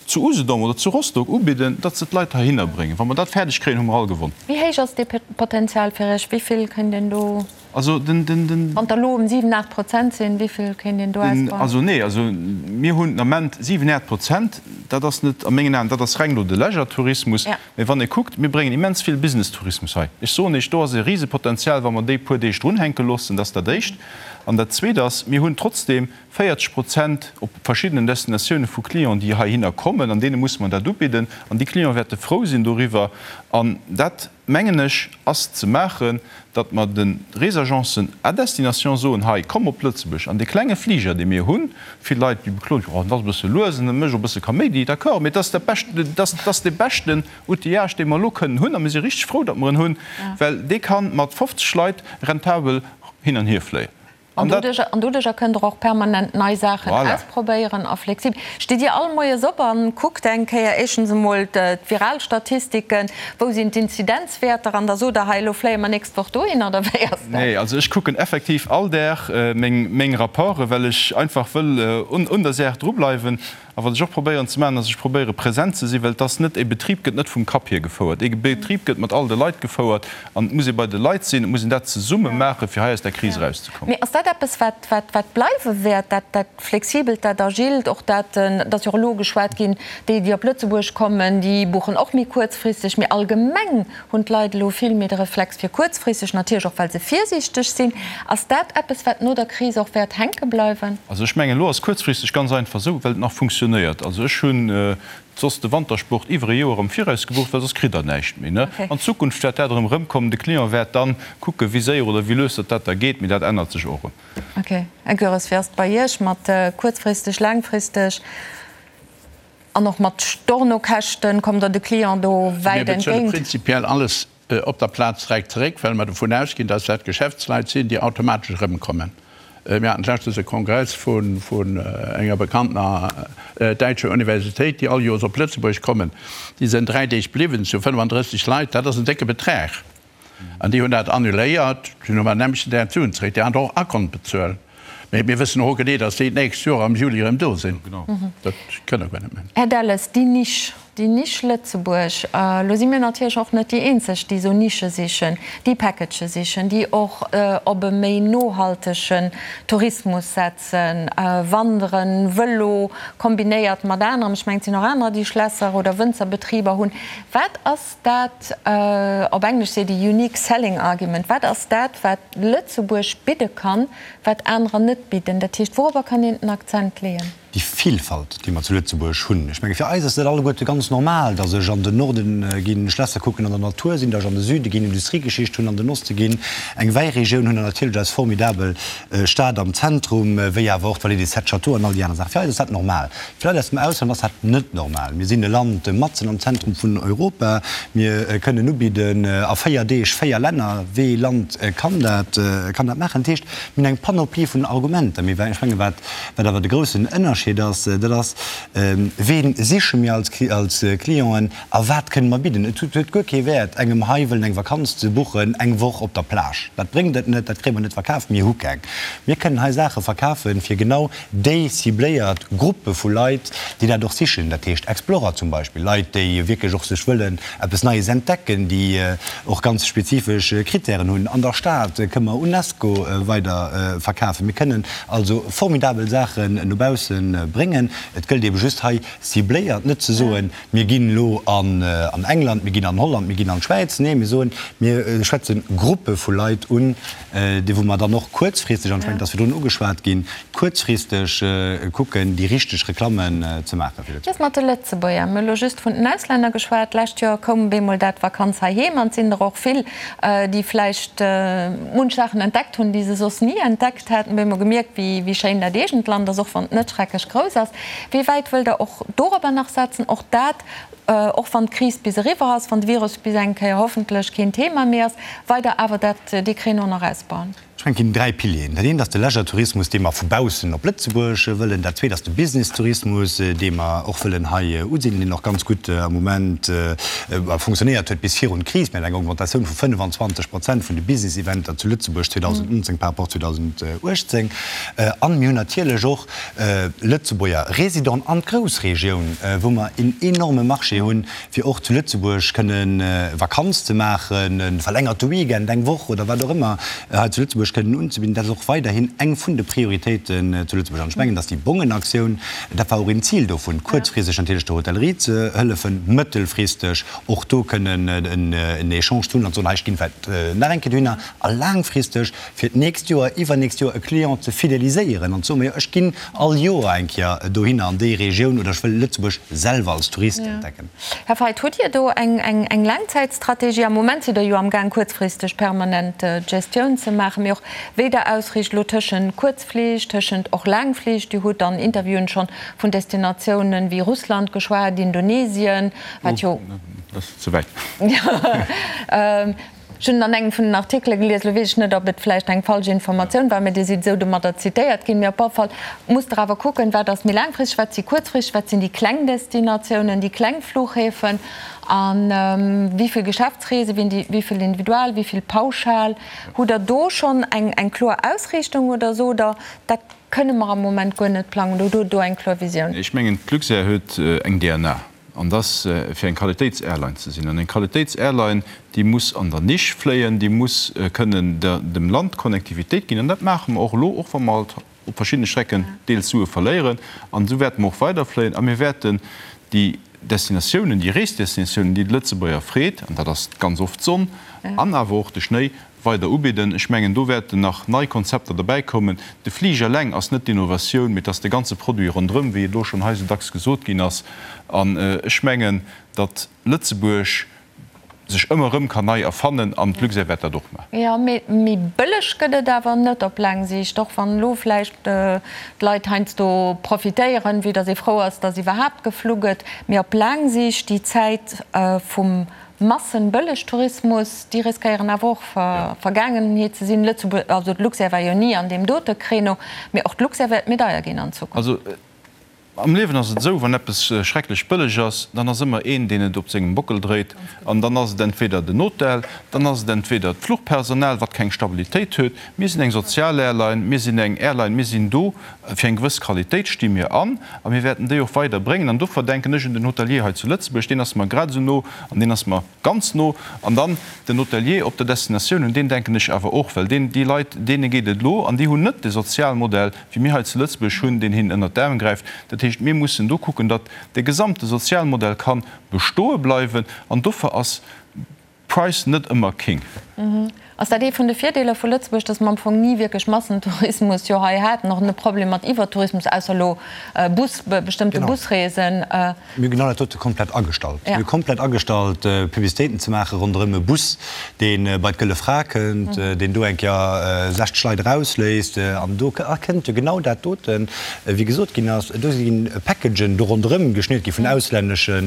zu Usedom oder zu Rostock ubidden, datt se d'Leit heihinner bréngen. Wa mer dat fäerdeg kréien, hu mer all gewonn. Wéi héich ass dee Potenzial fir Iech? Wéi vill kéint een do, Also den, den, den. wann der elo um 7, 8 Prozent sinn, wéi vill kéint een do ausbauen? Also nee, also mir hunn den Ament 7, 8 Prozent. Dat ass net a mengen Aen, dat ass reng elo de Leisure-Tourismus. Mee wann ee kuckt, mir bréngen immens vill Business-Tourismus hei. Ech soen Iech, do ass e Risepotenzial, wa mer déi puer Deeg drunhänke loossen. Dat ass dat Éischt. An dat Zweet ass, mir hunn trotzdeem 40 Prozent op verschiddenen Destinatioune vu Clienten, déi heihinner kommen, an deene musse mer dat ubidden. An déi Clienten wäerte frou sinn doriwwer. An dat, mengen ech, ass ze maachen, datt mer de Reesagencen à destination soen, hei, komm op Lëtzebuerg an dee klenge Fliger, dee mir hunn. Vill Leit, déi bekloen, jo, dat ass e bësse lues an dat mécht och e bësse Kaméidi. D'accord, mee dat ass dat Bescht, dat ass dee beschten Outillage, dee mer elo kënnen hunn a mir si richteg frou, datt mer en hunn, well dee ka mat 50 Leit rentabel hin an hier fléien. An doduercher kënnt Der och permanent nei Saachen ausprobéieren a flexibel. Stitt Dir all moies op a kuckt eng Kéier éischtens emol d'Viralstatistiken, wou sinn d'Inzidenzwäerter an da sot Der, hei elo fléie mer nächst Woch dohinner, oder wéi ass dat? Nee, also ech kucken effektiv all Dag meng Rapporten, well ech einfach wëll un der Saach drubleiwen. A wat ech och probéieren ze maachen, ass, ech probéiere present ze sinn, well et ass net, e Betrib gëtt net vum Kapp hier gefouert. E Betrib gëtt mat all de Leit gefouert an et muss ee bei de Leit sinn, et muss een dat zesumme maachen, fir hei aus där Kris erauszekommen. Mee ass dat eppes, wat, wat, wat bleiwe wäert, dat, dat Flexibelt, dat Agilt, och dat, et ass jo och elo geschwat ginn, déi, déi op Lëtzebuerg kommen, déi buchen och méi kuerzfristeg, mee allgemeng Hunn d'Leit elo vill méi de Reflex fir kuerzfristeg, natierlech och well se virsiichteg sinn. Ass dat eppes, wat no der Kris och wäert hänke bleiwen? Also ech mengen, elo ass kuerzfristeg ganz einfach esou, well et nach funktionéiert. Also ech hunn soss de Wantersport iwwer e Joer am Viraus gebucht, well soss kritt Der näischt méi. An Zukunft wäert dat erëm erëmkommen. De Client wäert dann kucken, wéi séier oder wéi lues datt dat da geet, mee dat ännert sech och erëm. Ok. Här Goeres, wéi ass et bei Iech mat kuerzfristeg, laangfristeg? An och mat Stornokäschten, kommt Der de Client do wäit Mir bezuele entgéint? prinzipiell alles op der Plaz direkt zeréck, well mer dovun ausginn, dass dat Geschäftsleit sinn, déi automatesch erëmkommen. Mir haten d'lescht e Kongress vun enger bekanntener däitscher Universitéit, déi all Joers op Lëtzebuerg kommen. Déi sinn dräi Deeg bliwwen, zu 35 Leit. Dat ass en décke Betrag. An déi hunn dat annuléiert, dunn hu mer nämlechen Dag d'Suen zeréck, déi aner och Akont bezuelen. Mee mir wëssen och genee, datt déi d'nächst Joer am Juli erëm do sinn. Dat kënne guer net méi. Här Delles, déi Nisch. Déi Nisch Lëtzebuerg, elo si mir natierlech och net déi eenzeg, déi esou Nische sichen, déi Packagë sichen, déi och op e méi nohaltegen Tourismus setzen, Wanderen, Vëlo kombinéiert mat anerem. Ech mengen, et sinn och anerer, déi Schlässer oder Wënzerbetriber hunn. Wat ass dat, op Englesch seet ee unique selling argument, wat ass dat, wat Lëtzebuerg bidde kann, wat anerer net bidden? Dat heescht, wourobber kann een den Akzent leeën? Déi Vilfalt, déi mer zu Lëtzebuerg hunn. Ech menge fir eis ass dat alleguerte ganz normal, datt ech an den Norden ginn Schlässer kucken, an der Natur sinn, datt ech an de Süde ginn Industriegeschicht hunn, an den Oste ginn eng Wäiregioun hunn an natierlech eis formidabel Stad am Zentrum, wéi awer och d'Vallée des Sept Châteaux an all déi aner Saachen. Fir eis ass dat normal. Fir Leit aus dem Ausland ass dat net normal. Mir sinn e Land matzen am Zentrum vun Europa. Mir kënnen ubidden a 4 Deeg 4 Länner. Wee Land kann dat, kann dat maachen? Dat heescht, mir hunn eng Panoplie vun Argumenter. Mee ech menge wat Wat awer de groussen Ënnerscheed ass, dat ass, Ween siche mir als Clienten a wat kënne mer bidden? Et huet guer kee Wäert, engem hei wëllen eng Vakanz ze buchen, eng Woch op der Plage. Dat bréngt et net, dat kréie mer net verkaf. Mir hu keng. Mir kënnen hei Saache verkafen, fir genau déi cibléiert Gruppe vu Leit, déi dat och sichen. Dat heescht Explorer zum Beispill, Leit, déi wierklech och sech wëllen eppes Neies entdecken, déi och ganz spezifesch Krittären hunn. An der Stad kënne mer Unesco weider verkafen. Mir kënnen also formidabel Saachen no bausse bréngen. Et gëllt eebe just hei cibléiert, net ze soen, mir ginn elo an England, mir ginn an Holland, mir ginn an d'Schwäiz. Nee, mir soen, mir schwätze Gruppe vu Leit un, déi wou mer dann och kuerzfristeg, an ech mengen, et ass virdrun ugeschwat ginn, kuerzfristeg kucken, déi richteg Reklammen ze maachen fir Lëtzebuerg. Just mat de Lëtzebuerger, mir hu elo just vun den Auslänner geschwat, d'lescht Joer koum bemol dat Vakanz heiheem an et sinn der och vill, déi vläicht munch Saachen entdeckt hunn, déi se soss ni entdeckt hätten, bemol gemierkt, wéi schéin dat eegent Land ass, och wann et net schrecklech grouss ass. Wéi wäit wëllt Der och dorobber nach setzen, och dat, och wann d'Kris bis eriwwer ass, wann de Virus bis eng Kéier hoffentlech keen Thema méi ass, weider awer dat, dee Créneau nach ausbauen? Ech mengen, et ginn 3 Pilieren. Dat eent ass de Leisure-Tourismus, dee mer vu baussen op Lëtzebuerg wëllen. Dat zweet ass de Business-Tourismus, dee mer och wëllen hei usidelen, deen och ganz gutt am Moment fonctionnéiert huet bis virun d'Kris. Mir haten eng Augmentatioun vu 25 Prozent vun de Business-Eventer zu Lëtzebuerg 2019 par rapport 2018. An mir hunn natierlech och Lëtzebuerger Résidenten an d'Groussregioun, wou mer een enorme Marché hunn, fir och zu Lëtzebuerg kënne Vakanz ze maachen, e verlängerte Weekend, eng Woch oder wat och ëmmer hei zu Lëtzebuerg kënnen unzebidden. Dat ass och weiderhin eng vun de Prioritéiten zu Lëtzebuerg. An ech mengen, dass déi Bongenaktioun, dat war och een Zil dovun, kuerzfristeg natierlech der Hotellerie ze hëllefen, mëttelfristeg och do kënnen en Echange ze hunn an ze soen, hei, ech ginn vläicht nach eng Kéier dohinner, a laangfristeg fir d'nächst Joer, iwwernächst Joer e Client ze fideliséieren an ze soen, majo ech ginn all Joer eng Kéier dohinner an déi Regioun oder ech wëll Lëtzebuerg selwer als Tourist entdecken. Här Feidt, hutt Dir do eng Laangzäitstrategie? Am Moment sidd Der jo amgaang kuerzfristeg permanent Gestioun ze maachen, mee och wéi Der ausriicht elo tëschent Kuerzflich, tëschent och Laangflich. Dir hutt an Interviewen schonn vun Destinatiounen wéi Russland geschwat, Indonesien, wat jo. Dat ass ze wäit. Ech hunn an engem vun den Artikele gelies, elo weess ech net, ob et vläicht eng falsch Informatioun war, mä Dir sidd esou domadder zitéiert ginn, mee op alle Fall musst Der awer kucken, wat ass méi laangfristeg, wat si kuerzfristeg, wat sinn déi kleng Destinatiounen, déi kleng Fluchhäfen a wéi vill Geschäftsreesen, wéi vill individual, wéi vill pauschal. Hutt Der do schonn eng kloer Ausriichtung oder sot Der, dat kënne mer am Moment guer net plangen oder hutt Der do eng kloer Visioun? Ech mengen, d'Luxair huet eng DNA. An dass, fir eng Qualitéitsairline ze sinn. An eng Qualitéitsairline, déi muss an der Nisch fléien, déi muss kënnen dem Land Connectivitéit ginn. An dat maache mer och elo, och wa mer halt op verschiddene Strecken deels Sue verléieren. An esou wäerte mer och weiderfléien. A mir wäerten déi Destinatiounen, déi Reesdestinatiounen, déi de Lëtzebuerger freet, an dat ass ganz oft d'Sonn an awer och de Schnéi, weider ubidden. Ech mengen, do wäerten nach nei Konzepter derbäikommen. De Fliger eleng ass net d'Innovatioun, mee et ass de ganze Produit ronderëm, wéi et elo schonn hei esou dacks gesot ginn ass. An ech mengen, datt Lëtzebuerg sech ëmmer erëm kann nei erfannen an d'Luxair wäert dat och maachen. Jo, mee méi bëlleg gëtt et awer net op laang Siicht, och wann elo vläicht d'Leit heiansdo profitéieren, vue datt ee frou ass, datt iwwerhaapt geflu gëtt. Mee op laang Siicht, déi Zäit vum Massenbëllegtourismus, déi riskéieren awer och Vergaangenheet ze sinn. Lëtzebuerg, also d'Luxair war jo ni an deem dote Créneau, mee och d'Luxair wäert méi deier ginn an Zukunft. Also. Am Liewen ass et esou, wann eppes schrecklech bëlleg ass, dann ass ëmmer een, deen et op sengem Bockel dréit. An dann ass et entweder den Hotel, dann ass et entweder d'Fluchpersonal, wat keng Stabilitéit huet. Mir sinn eng sozial Airline, mir sinn eng Airline, mir sinn do fir eng gewëss Qualitéit, sti mir an a mir wäerten déi och weider bréngen. An dofir denken ech un den Hotelier hei zu Lëtzebuerg, deen ass mer grad esou no an deen ass mer ganz no. An dann den Hotelier op der Destinatioun, un deen denken ech awer och, well deen, déi Leit, deene geet et elo an déi hunn net de Sozialmodell, wéi mir hei zu Lëtzebuerg hunn, deen hinnen ënnert d'Aarm gräift. Dat heescht, mir mussen do kucken, datt de gesamte Sozialmodell ka bestoe bleiwen. An dofir ass Price net ëmmer King. Ass dat ee vun de Virdeeler vu Lëtzebuerg, datt mer am Fong ni wierklech Massentourismus jo hei haten, och net Problem mat Iwwertourismus, ausser elo Bus, bestëmmte Busreesen? Mir hu genau dat dote komplett agestallt. Mir hu komplett agestallt, Publicitéiten ze maache ronderëm e Bus, dee bei d'Gëlle Fra kënnt, deen do eng Kéier 60 Leit erausléisst. An do kënnt jo genau dat doten, wéi gesot ginn ass, do si Packagen do ronderëm geschniert gi vun auslännesche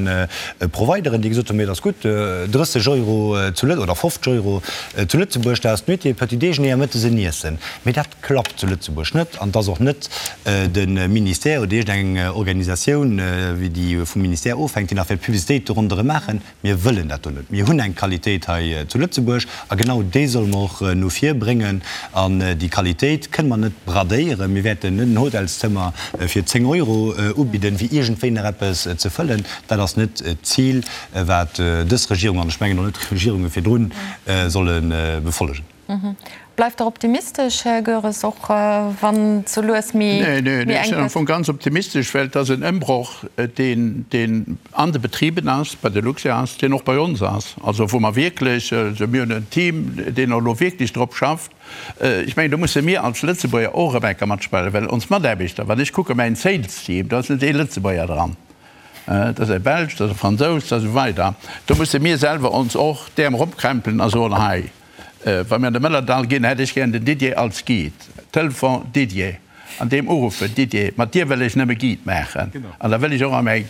Provideren, déi gesot hunn, Mee et ass gutt, 30 Euro zu Lët oder 50 Euro zu Lëtzebuerg, dat ass d'Nuitée, Petit déjeuner a mëttes en Iessen. Mee dat klappt zu Lëtzebuerg net an et ass och net de Ministère oder iergendeng Organisatioun, wéi déi vum Ministère ofhänkt, déi nach wäert Publicitéit do ronderëm maachen. Mir wëllen dat do net. Mir hunn eng Qualitéit hei zu Lëtzebuerg a genau déi solle mer och no vir bréngen. An déi Qualitéit kënne mer net bradéieren. Mir wäerten net en Hotelszëmmer fir 10 Euro ubidden, fir iergendwéi nach eppes ze fëllen. Dat ass net d'Zil, wat dës Regierung, an ech mengen och net d'Regierunge virdrun, solle befollegen. Bleift Der optimistesch, Här Goeres, och wann et sou lues méi enk gëtt? Nee, nee, ech sinn am Fong ganz optimistesch, well et ass en Ëmbroch, deen, deen an de Betriben ass, bei der Luxair ass, deen och bei ons ass. Also wou mer wierklech, also mir hunn en Team, deen och elo wierklech drop schafft. Ech mengen, do musse mir als Lëtzebuerger och erëm eng Kéier matspillen, well ons Mataarbechter, wann ech kucke mäin Sales-Team, do ass net ee Lëtzebuerger dran. Dat ass e Belsch, dat ass e Fransous, dat ass esou weider. Do musse mir selwer ons och d'Äerm eropkrämpelen a soen, hei, wa mir an de Mëllerdall ginn, hätt ech gären den Didier als Guide. Telefon, Didier, an deem uruffen, Didier, mat dir wëll ech nëmme Guide maachen. An da wëll ech och a mäi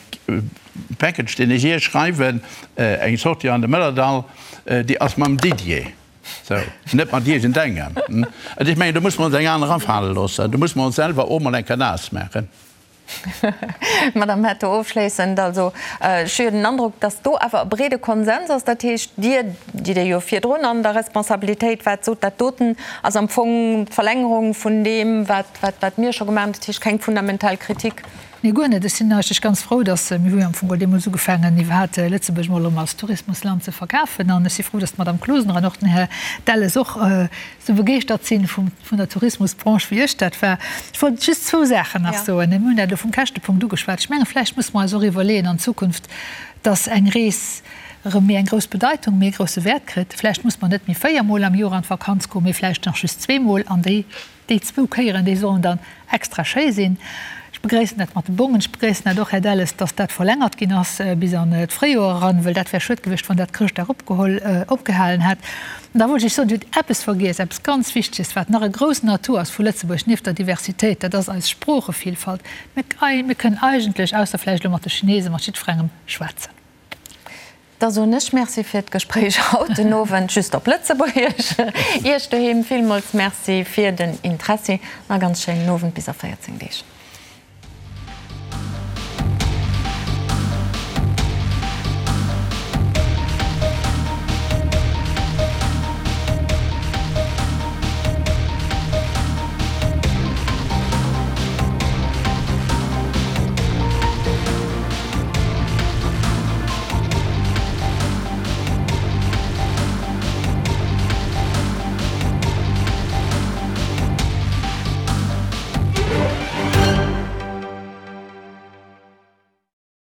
Package, deen ech Iech schreiwen, eng Sortie an de Mëllerdall, déi ass mam Didier. Sou, net mat iergendengem. An ech mengen, do musse mer ons eng aner afale loossen. Do musse mer ons selwer och mol eng Kéier naass maachen. Madame Hetto, ofschléissend, also ech hu jo den Androck, datt do awer e breede Konsens ass. Dat heescht, Dir, déi Dir jo virdrun an der Responsabilitéit waart, sot, dat doten ass am Fong d'Verlängerung vun deem, wat, wat mir scho gemaach hunn. Dat heescht, keng fundamental Kritik. Nee, guer net. Ech sinn eigentlech ganz frou, datt, mir hu jo am Fong geholl deemools ugefaangen, iwwerhaapt Lëtzebuerg emol erëm als Tourismusland ze verkafen. An ech si frou, datt d'Madame Closener an och den Här Delles och esou begeeschtert sinn vum, vun der Tourismusbranche wéi ech dat war. Ech wollt just zwou Saachen nach soen. Mir hunn dat elo vum Käschtepunkt ugeschwat. Ech menge vläicht musse mer eis och iwwerleeën an Zukunft, dass eng Rees erëm méi eng grouss Bedeitung, méi e grousse Wäert kritt. Vläicht muss mer net méi véiermol am Joer an d'Vakanz goen, mee vläicht nach just zweemol an déi, déi zwou Kéieren, déi sollen dann extra schéi sinn. Ech begréissen dat mat de Bongen. Ech begréissen dat och, Här Delles, dass dat verlängert ginn ass bis an d'Fréijoer eran, well dat wär schued gewiescht, wann dat Chrëschtdag opgeholl, opgehalen hätt. An da wollt ech soen, Dir hutt eppes vergiess, eppes ganz Wichteges, wat nach e groussen Atout ass vu Lëtzebuerg, nieft der Diversitéit, dat ass eis Sproochevielfalt. Mir, mir kënnen eigentlech, ausser vläicht elo mat de Chinesen, mat jiddwerengem schwätzen. Da soen ech Merci fir d'Gespréich haut den Owend, just op Lëtzebuergesch. Iech doheem villmools Merci fir den Interessi an e ganz schéinen Owend bis a 14 Deeg.